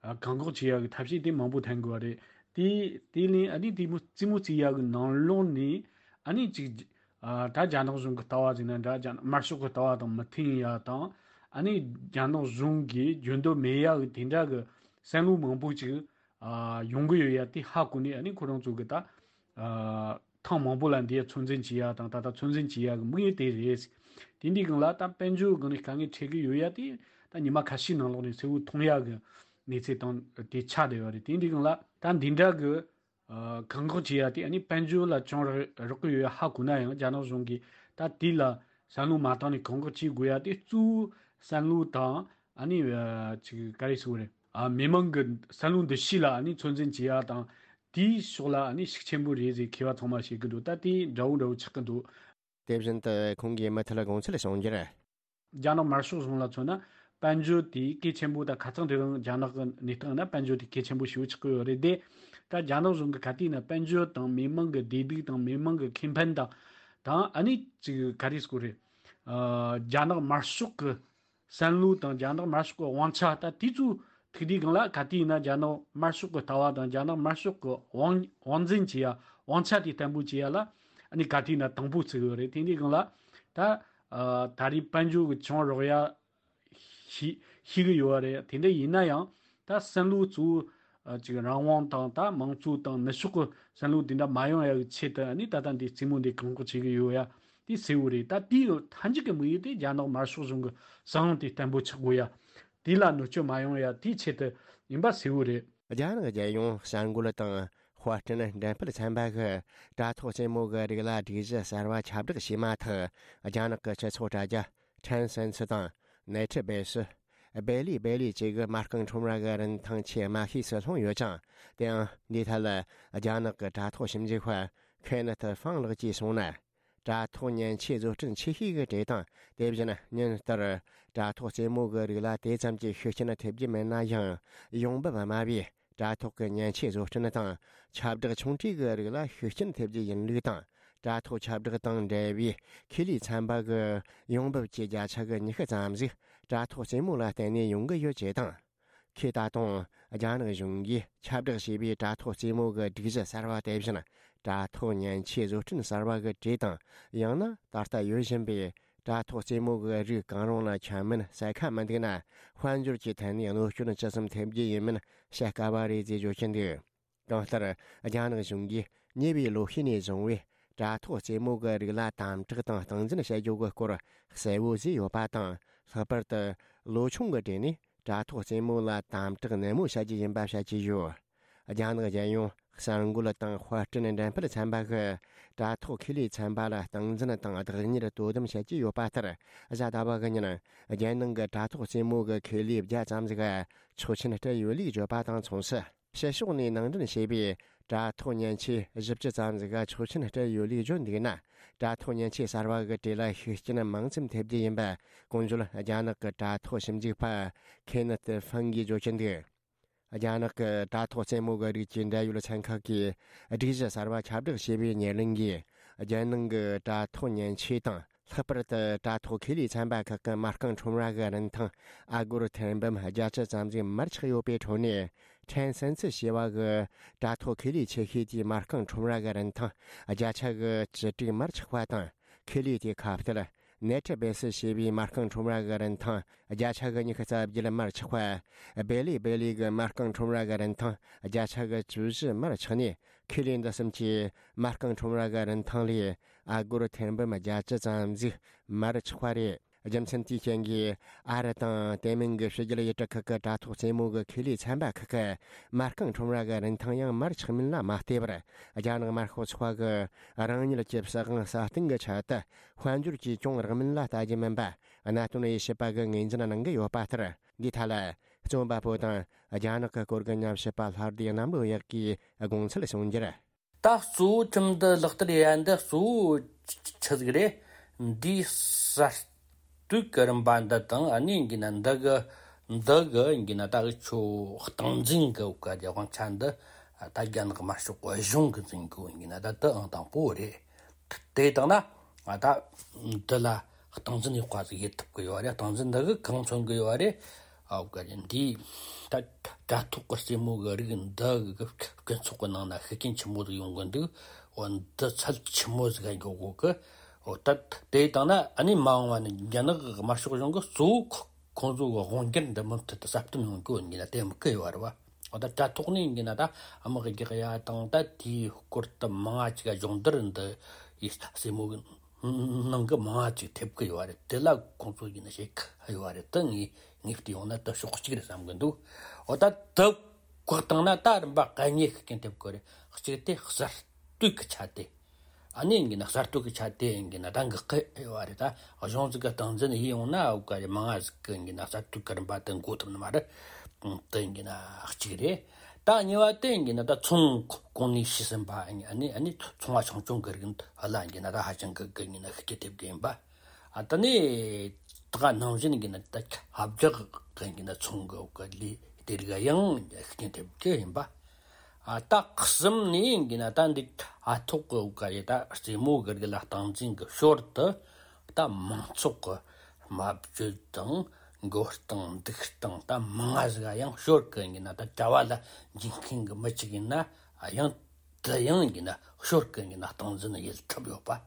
ཨ་བཀག་འགོག་བྱེད་ཡ་གི་ཐབས་ཤེས་དེ་མང་པོ་འཐེན་དགོས་པ་རེད། དེ་དེ་ལས་ཨ་ནི་དེ་མོ་རྩེད་མོ་རྩེ་ཡ་གི་ནང་ལོགས་ནས་ཨ་ནི་ཅིག་ཨ་ད་རྒྱ་ནག་གཞུང་གི་ལྟ་བ་ཟིག་ན་འདྲ། རྒྱ་དམར་ཤོག་གི་ལྟ་བ་དང་མི་མཐུན་ཡ་དང་ཨ་ནི་རྒྱ་ནག་གཞུང་གིས་འཇོན་འདོད་མེད་ཡ་གི་དེ་འདྲ་གི་བསམ་བློ་མང་པོ་ཅིག་ཨ་ཡོང་གི་ཡོད་ཡ་དེ་ཧ་གོ་ནས་ཨ་ནི་ཁོ་རང་ཚོ་གི་ད་ཨ་ཐེངས་མང་པོ་ལ་འདི་ཡ་ཚོད་འཛིན་བྱེད་ཡ་དང་ད་ལྟ་ཚོད་འཛིན་བྱེད་ཡ་གི་དམིགས་ཡུལ་དེ་རེད། དེ་འདི་སྒང་ལ་ད་དཔལ་འབྱོར་སྒང་ནས་དཀའ་ངལ་འཕྲད་གི་ཡོད་ཡ་དེ་ད་ཉི་མ་ཁ་ཤས་ནང་ལོགས་ནས་གསལ་བོ་མཐོང་ཡ་གི་གནས་ཚུལ་དང་དེ་ཆགས་བསྡད་ཡོད་རེད། དེ་འདི་སྒང་ལ་ད་འདི་འདྲ་གི་ཨ་བཀག་འགོག་བྱེད་ཡ་དེ་ཨ་ནི་དཔལ་འབྱོར་ལ་ཅུང་རག་རག་གི་ཡོད་ཡ་ཧ་གོ་ན་ཡང་རྒྱ་ནག་གཞུང་གིས་ད་དེ་ལ་བསམ་བློ་མ་བཏང་ནས་བཀག་འགོག་བྱེད་དགོས་ཡ་དེ་གཙོ་བོ་བསམ་བློ་དང་ཨ་ནི་ཨ་ཅིག་ག་རེ་ཟེར་དགོས་རེད། ཨ་མི་མང་གི་བསམ་བློ་འདུ་ཤེས་ལ་ཨ་ནི་ཚོད་འཛིན་བྱེད་ཡ་དང་དེའི་ཕྱོགས་ལ་ཨ་ནི་ཤུགས་ཆེན་པོ་རེད་ཟེར་མཁས་པ་ཚང་མ་བཤད་གི་འདུག་ད་དེ་འདྲ་བོ་འདྲ་བོ་ཆགས་གི་འདུག་དེ་བཞིན་དུ་ཁོང་གིས་མུ་མཐུད་དགོངས་ཚུལ་གསུང་རྒྱུར། རྒྱ་ནག་དམར་ཤོག་གཞུང་ལ་མཚོན་ན་དཔལ་འབྱོར་དེ་གལ་ཆེན་པོ་དང་ཁ་སང་དེ་རིང་རྒྱ་ནག་གི་གནས་སྟངས་ན་དཔལ་འབྱོར་དེ་གལ་ཆེན་པོ་ཞེ་པོ་ཆགས་ཀྱི་ཡོད་རེད་དེ། ད་རྒྱ་ནག་གཞུང་གི་ག་དུས་ན་དཔལ་འབྱོར་དང་མི་མང་གི་བདེ་སྡུག་དང་མི་མང་གི་ཁེ་ཕན་དང་དང་ཨ་ནི་ཅིག་ག་རེ་ཟེར་དགོས་རེད། ཨ་རྒྱ་ནག་དམར་ཤོག་གི་བསམ་བློ་དང་རྒྱ་ནག་དམར་ཤོག་གི་དབང་ཆ་ད་དེ་ཚོ་ཐུག་དུས་སྒང་ལ་ག་དུས་ན་རྒྱ་ནག་དམར་ཤོག་གི་ལྟ་བ་དང་རྒྱ་ནག་དམར་ཤོག་གི་དབང་དབང་འཛིན་བྱེད་ཡ་དབང་ཆ་དེ་བརྟན་པོ་བྱེད་ཡ་ལ་ཨ་ནི་ག་དུས་ན་དང་པོ་བརྩི་གི་ཡོད་རེད། དེ་འདི་སྒང་ལ་ད་ཨ་ད་རེས་དཔལ་འབྱོར་གྱི་ཆུང་རོགས་ཡ་ཤི་ཤི་གི་ཡོད་རེད། དེ་འདྲ་ཡིན་ན་ཡང་ད་བསམ་བློ་གཙོ་བོ་ཨ་ཅིག་རང་དབང་དང་ད་མང་གཙོ་དང་ནུབ་ཕྱོགས་ཀྱི་བསམ་བློ་དེ་འདྲ་མ་ཡོང་ཡ་གི་ཆེད་དུ་ཨ་ནི་ད་ལྟ་འདི་རྩེད་མོ་འདི་བཀག་འགོག་བྱེད་གི་ཡོད་ཡ་དེ་གསལ་བོ་རེད། ད་དེའི་མཐའ་མཇུག་གི་དམིགས་ཡུལ་དེ་རྒྱ་ནག་དམར་ཤོག་གཞུང་གི་བཟང་དེ་བརྟན་པོ་ཆགས་དགོས་ཡ། དེ་ལ་གནོད་སྐྱོན་མ་ཡོང་ཡ་དེའི་ཆེད་དུ་ཡིན་པ་གསལ་བོ་རེད། རྒྱ་ནག་རྒྱལ་ཡོངས་གསར་འགོད་དང་དཔར་སྐྲུན་འགྲེམས་སྤེལ་ཚན་པ་གིས་དྲ་ཐོག་རྩེད་མོ་གི་རིགས་ལ་སྒྲིག་གཞི་གསར་བ་ཁྱབ་བསྒྲགས་བྱས་མ་ཐག་རྒྱ་ནག་གི་སྤྱི་ཚོགས་དྲ་རྒྱ་ཁྲན་སན་སི་དང་ནེ་ཁྲི་སྦེ་སི། སྦེ་ལི་སྦེ་ལི་བཅས་ཀྱི་མ་རྐང་ཁྲོམ་ར་གི་རིན་ཐང་ཆེས་དམའ་ཤོས་སུ་ལྷུང་ཡོད་ཅིང་། དེའང་འདིའི་ཐད་ལ་རྒྱ་ནག་གི་དྲ་ཐོག་ཞིབ་འཇུག་པ་ཁེ་ནེ་ཐི་ཧྥང་ལགས་ཀྱིས་གསུངས་ན། དྲ་ཐོག་མཉེན་ཆས་བཟོ་སྐྲུན་ཆེ་ཤོས་ཀྱི་གྲས་དང་དེ་བཞིན་ཉིན་ལྟར་དྲ་ཐོག་རྩེད་མོ་གི་རིགས་ལ་དེ་ཙམ་གྱི་ཤུགས་རྐྱེན་ཐེབས་རྒྱུ་མེད་ན་ཡང་། ཡོང་འབབ་དམའ་བས་དྲ་ཐོག་གི་མཉེན་ཆས་བཟོ་སྐྲུན་དང་ཁྱབ་བསྒྲགས་ཆུང་གྲས་ཀྱི་རིགས་ལ་ཤུགས་རྐྱེན་ཐེབས་རྒྱུ་ཡིན་ལུགས་དང་། དྲ་ཐོག་ཁྱབ་བསྒྲགས་དང་འབྲེལ་བའི་ཁེ་ལས་ཚན་པ་གི་ཡོང་འབབ་ཀྱི་བརྒྱ་ཆ་གི་ཉི་ཤུ་ཙམ་ཞིག་དྲ་ཐོག་རྩེད་མོ་ལ་བརྟེན་ནས་ཡོང་གི་ཡོད་ཅེས་དང་། ཁོས་ད་དུང་རྒྱ་ནག་གཞུང་གིས་ཁྱབ་བསྒྲགས་བྱས་པའི་དྲ་ཐོག་རྩེད་མོ་གི་སྒྲིག་གཞི་གསར་བ་དེ་བཞིན་དྲ་ཐོག་མཉེན་ཆས་བཟོ་སྐྲུན་གསར་བ་གི་གྲས་དང་། ཡང་ན་ད་ལྟ་ཡོད་བཞིན་པའི་དྲ་ཐོག་རྩེད་མོ་གི་རིགས་གང་རུང་ལ་ཁྱབ་མིན་གསལ་ཁ་མི་འདུག་ན། དཔལ་འབྱོར་གྱི་ཐད་ནས་གནོད་སྐྱོན་ཇི་ཙམ་ཐེབས་རྒྱུ་ཡིན་མིན་བཤད་དཀའ་བ་རེད་ཅེས་བརྗོད་ཀྱིན་འདུག་གང་ལྟར། རྒྱ་ནག་གཞུང་གིས་ཉེ་བའི་ལོ་ཤས་ནས་བཟུང་བའི་དྲ་ཐོག་རྩེད་མོ་གི་རིགས་ལ་དམ་དྲག་དང་སྟངས་འཛིན་བྱ་རྒྱུ་གི་སྐོར་གསལ་བོ་བཟོས་ཡོད་པ་དང་། ལྷག་པར་དུ་ལོ་ཆུང་གི་གྲས་ནས་དྲ་ཐོག་རྩེད་མོ་ལ་དམ་དྲག་ནན་མོ་བྱ་རྒྱུ་ཡིན་པ་བཤད་ཀྱི་ཡོད། རྒྱ་ནག་རྒྱལ་ཡོངས་གསར་འགོད་དང་དཔར་སྐྲུན་འགྲེམས་སྤེལ་ཚན་པ་གིས་དྲ་ཐོག་ཁེ་ལས་ཚན་པ་ལ་སྟངས་འཛིན་དང་བདག་གཉེར་དོ་དམ་བྱེད་ཀྱི་ཡོད་པ་ལྟར། གཟའ་ཟླ་བ་གི་ཉིན་རྒྱལ་ནང་གི་དྲ་ཐོག་རྩེད་མོ་གི་ཁེ་ལས་བརྒྱ་ཙམ་ཞིག་ཆོག་མཆན་སྤྲད་ཡོད་ལུགས་བརྗོད་པ་དང་མཚུངས་སུ། ཕྱི་ཕྱོགས་ནས་ནང་འདྲེན་བྱས་པའི་དྲ་ཐོག་མཉེན་ཆས་བཞི་བཅུ་ཙམ་ཞིག་ཆོག་མཆན་སྤྲད་ཡོད་ལུགས་བརྗོད་འདུག་ན། དྲ་ཐོག་མཉེན་ཆས་གསར་བ་གི་གྲས་ལ་ཤུགས་རྐྱེན་མང་ཙམ་ཐེབས་རྒྱུ་ཡིན་པ་གོང་བརྗོད་རྒྱ་ནག་གི་དྲ་ཐོག་ཞིབ་འཇུག་པ་ཁེ་ནེ་ཐི་ཧྥང་གིས་བརྗོད་ཀྱིན་འདུག་རྒྱ་ནག་གི་དྲ་ཐོག་རྩེད་མོ་གི་རིགས་ཀྱི་འབྲེལ་ཡོད་ཚན་ཁག་གིས་སྒྲིག་གཞི་གསར་བ་ཁྱབ་བསྒྲགས་བྱས་པའི་ཉེར་ལེན་གྱིས། རྒྱལ་ནང་གི་དྲ་ཐོག་མཉེན་ཆས་དང་། ལྷག་པར་དུ་དྲ་ཐོག་ཁེ་ལས་ཚན་པ་ཁག་གི་མ་རྐང་ཁྲོམ་ར་གི་རིན་ཐང་ཨ་སྒོར་ཐེར་འབུམ་བརྒྱད་ཅུ་ཙམ་ཞིག་མར་ཆག་ཡོད་པའི་ཁྲོད་ནས། ཁྲན་སན་ཚི་ཞེས་པ་གི་དྲ་ཐོག་ཁེ་ལས་ཆེ་ཤོས་དེའི་མ་རྐང་ཁྲོམ་ར་གི་རིན་ཐང་བརྒྱ་ཆ་གི་བཅུ་དྲུག་མར་ཆག་པ་དང་། ཁེ་ལས་དེའི་ཁ་གཏད་ནེ་ཁྲི་སྦེ་སི་ཞེས་པའི་མ་རྐང་ཁྲོམ་ར་གི་རིན་ཐང་བརྒྱ་ཆ་གི་ཉི་ཤུ་རྩ་བརྒྱད་མར་ཆག་པ། སྦེ་ལི་སྦེ་ལི་གི་མ་རྐང་ཁྲོམ་ར་གི་རིན་ཐང་བརྒྱ་ཆ་གི་བཅུ་བཞི་མར་ཆག་ནས། ཁེ་ལས་འདི་གསུམ་གྱིས་མ་རྐང་ཁྲོམ་ར་གི་རིན་ཐང་ལས་ ཨ་སྒོར་ཐེར་འབུམ་བརྒྱད་ཅུ་ཙམ་ཟིག་མར་ཆག་པ་རེད། རྒྱུ་མཚན་དེའི་རྐྱེན་གྱིས་ཨ་རི་དང་དེ་མིན་གྱི་ཕྱི་རྒྱལ་ཡུལ་གྲུ་ཁག་གི་དྲ་ཐོག་རྩེད་མོ་གི་ཁེ་ལས་ཚན་པ་ཁག་གིས་མ་རྐང་ཁྲོམ་ར་གི་རིན་ཐང་ཡང་མར་ཆག་མིན་ལ་མ་བལྟས་པར། རྒྱ་ནག་དམར་ཤོག་ཚོགས་པ་གི་རང་ཉིད་ཀྱི་སྲིད་དབང་སྲ་བརྟན་གྱི་ཆེད་དུ་དཔལ་འབྱོར་གྱིས་གྱོང་རག་མིན་ལ་ལྟ་རྒྱུ་མིན་པ། གནད་དོན་དབྱེ་ཞིབ་པ་གིས་ངོས་འཛིན་གནང་གི་ཡོད་པ་ལྟར། འདིའི་ཐད་ལ། རྩོམ་པ་པོ་དང་རྒྱ་ནག་གི་སྐོར་གྱི་ཉམས་ཞིབ་པ་ལྷ་སྡེ་གནམ་ལོ་ཡག་གིས་དགོངས་ཚུལ་གསུངས་རྒྱུར། ད་གཙོ་བོ་ཁྲིམས་འདི་ལག་བསྟར་ཡ་འདི་གཙོ་བོ་ཆི་ཟིག་རེད། འདིའི་གསར་གཏོད་ཀྱི་རིམ་པ་འདི་དང་ཨ་ནི་ཡིན་གྱི་ན་འདི་གི་འདི་གི་ཡིན་གྱི་ན་ད་གི་ཆོ་སྟངས་འཛིན་གི་བཀའ་རྒྱ་དབང་ཆ་འདི་ད་རྒྱ་ནག་དམར་ཤོག་གཞུང་གི་འཛིན་གི་ཡིན་གྱི་ན་ད་དུ་ཨང་དང་པོ་རེད། དེ་དང་ན་ང་ད་འདི་ལ་སྟངས་འཛིན་ཡག་པ་ཟིག་ཡེད་ཐུབ་ཀྱི་ཡོད་རེད། སྟངས་འཛིན་འདི་གི་གང་མཚོན་གི་ཡོད་རེད། ཨའོ་ག་རེ་འདི་ད་དྲ་ཐོག་གི་རྩེད་མོ་གི་རིགས་འདི་གི་སྤྱི་ཚོགས་གི་ནང་ན་ཤུགས་རྐྱེན་ཆེན་མོ་ཟིག་ཡོང་གི་འདུག་འོ་འདི་ཚད་ཆེན་མོ་ཟིག་ག་འགྱོ་དགོས་གི་འོ་ད་དེ་དང་ན་ཨ་ནི་མ་འོངས་པ་ནི་རྒྱ་ནག་གི་དམར་ཤོག་གཞུང་གི་གཙོ་བོ་ཁོ་ཁོང་ཚོ་གི་དབང་སྒྱུར་འདི་མུ་མཐུད་དུ་གསལ་སྟོན་ཡོང་གི་ཡོད་ཡིན་ན་དེ་མི་སྐུ་ཡོད་རེད་བ། འོ་ད་དྲ་ཐོག་ནས་ཡིན་གྱི་ན་ད་དམག་རྒྱག་ཡ་དང་ད་དེའི་སྐོར་དུ་མང་ང་ཅིག་སྦྱོང་བརྡར་འདི་ཡི་སྲས་མོ་གི་ནང་གི་མང་ང་ཅིག་ཐེབས་ཀྱི་ཡོད་རེད། དེ་ལ་ཁོང་ཚོ་ཡིན་ན་ཞེ་གི་ཡོད་རེད། ད་ངས་ངས་བལྟས་ཡོང་ན་ད་ཕྱོགས་གཅིག་རེད་བསམ་གི་འདུག་འོ་ད་དུ་བཀག་བཏང་ན་ད་རིམ་པ་ག་ཉེ་ཤུགས་རྐྱེན་ཐེབས་ཀྱི་རེད། གཅིག་དེ་གསར་གཏོད་ཀྱི་ཆ་དེ། ཨ་ནི་ཡིན་གྱི་ན་གསར་གཏོད་ཀྱི་ཆ་དེ་ཡིན་གྱི་ན་ད་འགག་གི་ཡོད་རེད། ད་གཞུང་ཟིག་གི་སྟངས་འཛིན་ཡིན་ཡོང་ན་འུ་ག་རེ་མང་ང་ཟིག་གི་ཡིན་གྱི་ན་གསར་གཏོད་ཀྱི་རིམ་པ་དེ་འགོ་ཐུབ་ནི་མ་རེད། དེ་ཡིན་གྱི་ན་གཅིག་རེད། ད་གཉིས་པ་དེ་ཡིན་གྱི་ན་ད་ཚོང་གོང་ནས་ཤི་ཟིན་པ་ཨ་ནི་ཨ་ནི་ཚོང་བ་ཆུང་ཆུང་གི་རིགས་འདི་ལ་ཡིན་གྱི་ན་ད་ཧ་ཅང་གི་གི་ཡིན་ན་ཤུགས་རྐྱེན་ཐེབས་གི་ཡིན་པ། ཨ་ད་ནི་ད་ག་ནང་བཞིན་ཡིན་གྱི་ན་ད་ཁྱབ་རྒྱག་གི་ཡིན་གྱི་ན་ཚོང་གི་འུ་ག་ལས་དེ་རིགས་ཡང་ཤུགས་རྐྱེན་ཐེབས་གི་ཡིན་པ། ཨ་ད་གསུམ་ནས་ཡིན་གྱི་ན་ད་འདི་ཨ་ཐོག་གི་འུ་ག་ཡི་ད་རྩེད་མོ་གི་རིགས་ལ་སྟངས་འཛིན་གི་ཞོར་དུ་ད་མང་ཚོགས་གི་སྨྲ་བརྗོད་དང་མགོ་རྟིང་འདུག་སྟངས་ད་མང་ང་ཟིག་ཡང་ཞོར་གི་ཡིན་གྱི་ན་ད་གྲྭ་བ་ལ་འཇིགས་མཁན་གི་མི་གཅིག་ཡིན་ན་ཡང་དེ་ཡང་ཡིན་གྱི་ན་ཞོར་གི་ཡིན་གྱི་ན་སྟངས་འཛིན་ཡེད་ཐུབ་ཡོད་པ།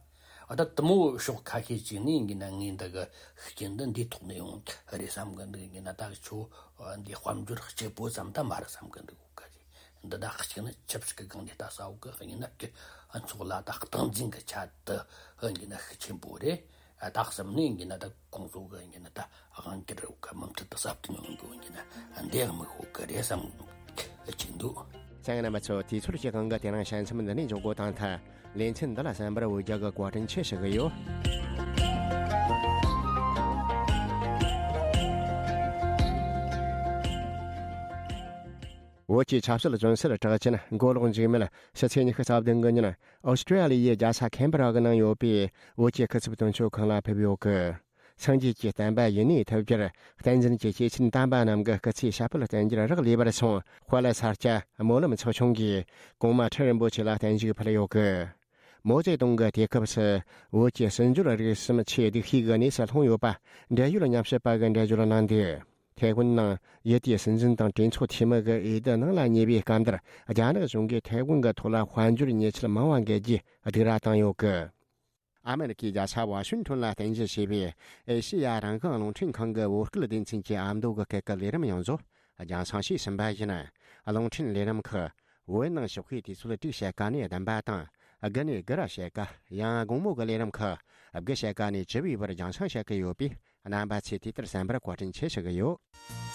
ཨ་ད་དེ་མོ་ཕྱོགས་ཁ་ཤས་ཅིག་ནས་ཡིན་གྱི་ན་ངས་འདི་གི་ཤུགས་རྐྱེན་འདི་འདིའི་ཐོག་ནས་ཡོང་གི་རེད་བསམ་གི་འདུག་ཡིན་གྱི་ན་ད་ཁྱོད་འདི་དཔལ་འབྱོར་གཅིག་པོ་ཙམ་ད་མ་རེད་བསམ་གི་འདུག་ག་རེད། འདི་ད་གཅིག་ནི་ཆབ་སྲིད་ཀྱི་སྒང་ནས་ལྟ་ས་འོག་གི་ཡིན་ན་ཀྱི་ཨ་ཚོགས་ལ་ད་སྟངས་འཛིན་གྱི་ཆ་དུ་ཡིན་གྱི་ན་ཤུགས་ཆེན་པོ་རེད། ཨ་ད་གསུམ་ནས་ཡིན་གྱི་ན་ད་ཁོང་ཚོ་གི་ཡིན་གྱི་ན་ད་དབང་སྒྱུར་འོག་གི་མུ་མཐུད་དུ་ཟབ་ཏུ་ཡོང་དགོས་ཡིན་གྱི་ན་འདི་ཡང་མི་ཤོག་གི་རེད་བསམ་གི་ཅིག་འདུག་ཚང་རྣམ་པ་ཚོ། དུས་ཚོད་ཀྱི་དབང་གིས་དེ་རིང་དཔྱད་མཚམས་འདི་ནས་འཇོག་དགོས་དང་ཐལ། ལེ་ཚན་འདི་ལ་གསན་པར་འོས་རྒྱ་གི་བཀའ་དྲིན་ཆེ་ཞུ་གི་ཡོད། བོད་ཀྱི་ཆབ་སྲིད་བཙོན་ཟུར་གྲགས་ཅན་མགོ་ལོག་འཇིགས་མེད་ཕྱི་ཚེས་ཉི་ཤུ་རྩ་བདུན་གི་ཉིན་ཨོ་སི་ཀྲི་ཡ་ལི་ཡའི་རྒྱལ་ས་ཁེན་བྷ་ར་གི་ནང་ཡོད་པའི་བོད་ཀྱི་སྐུ་ཚབ་དོན་གཅོད་ཁང་ལ་ཕེབས་ཡོད་གི། སངས་རྒྱས་ཀྱི་བསྟན་པ་ཡུན་གནས་ཐུབ་རྒྱུར་བསྟན་འཛིན་གྱི་སྐྱེས་ཆེན་དམ་པ་རྣམས་ཀྱི་སྐུ་ཚེའི་ཞབས་པད་བརྟན་རྒྱུར་རག་ལས་པར་སོང་། དཔལ་ས་སྐྱ་སྨོན་ལམ་ཚོགས་ཆུང་གིས་གོང་མ་ཁྲི་རིན་པོ་ཆེ་ལ་བརྟན་བཞུགས་ཕུལ་ཡོད་གི། མའོ་ཙེ་ཏུང་གི་དུས་སྐབས་སུ་བོད་ཀྱི་སྲིད་འབྱོར་རིག་གསུམ་ཆེས་སྡུག་ཤོས་ཀྱི་གནས་སུ་ལྷུང་ཡོད་པ་འབྲེལ་ཡོད་ཉམས་ཞིབ་པ་གིས་འགྲེལ་བརྗོད་གནང་འདུག་ཐའེ་ཝན་ནང་ཡུལ་དེའི་སྲིད་འཛིན་དང་གྲོས་ཚོགས་འཐུས་མི་གི་འོས་བསྡུ་ནང་ལ་ཉེ་བའི་སྐབས་འདིར་རྒྱ་ནག་གཞུང་གིས་ཐའེ་ཝན་གྱི་ཐོག་ལ་དཔལ་འབྱོར་ཉེས་ཆད་མང་བ་འགེལ་རྒྱུའི་སྡིགས་ར་བཏང་ཡོད་གི། ཨ་མེ་རི་ཁའི་རྒྱལ་ས་ཝ་ཤིང་ཊོན་ལ་རྟེན་གཞི་བྱས་པའི་ཨེ་ཤེ་ཡ་རང་དབང་རླུང་འཕྲིན་ཁང་གི་བོད་སྐད་སྡེ་ཚན་གྱི་ཨ་མདོ་གི་སྐད་ཀྱི་ལས་རིམ་ཡོངས་རྫོགས་རྒྱང་སྲིང་བྱས་ཟིན་པ་ཡིན། རླུང་འཕྲིན་ལས་རིམ་ཁག་བོད་ནང་ཞོགས་ཀའི་དུས་ཚོད་དྲུག་ཕྱེད་ཀ་ནས་བདུན་པ་དང་། དགུ་ནས་དགུ་ར་ཕྱེད་ཀ། ཡང་དགོང་མོ་གི་ལས་རིམ་ཁག་དགུ་ཕྱེད་ཀ་ནས་བཅུ་པའི་བར་རྒྱང་སྲིང་བྱེད་ཀྱི་ཡོད་པས། རྣམ་པ་ཚོས་དུས་ལྟར་གསན་པར་བཀའ་དྲིན་ཆེ་ཞུ་གི་ཡོད།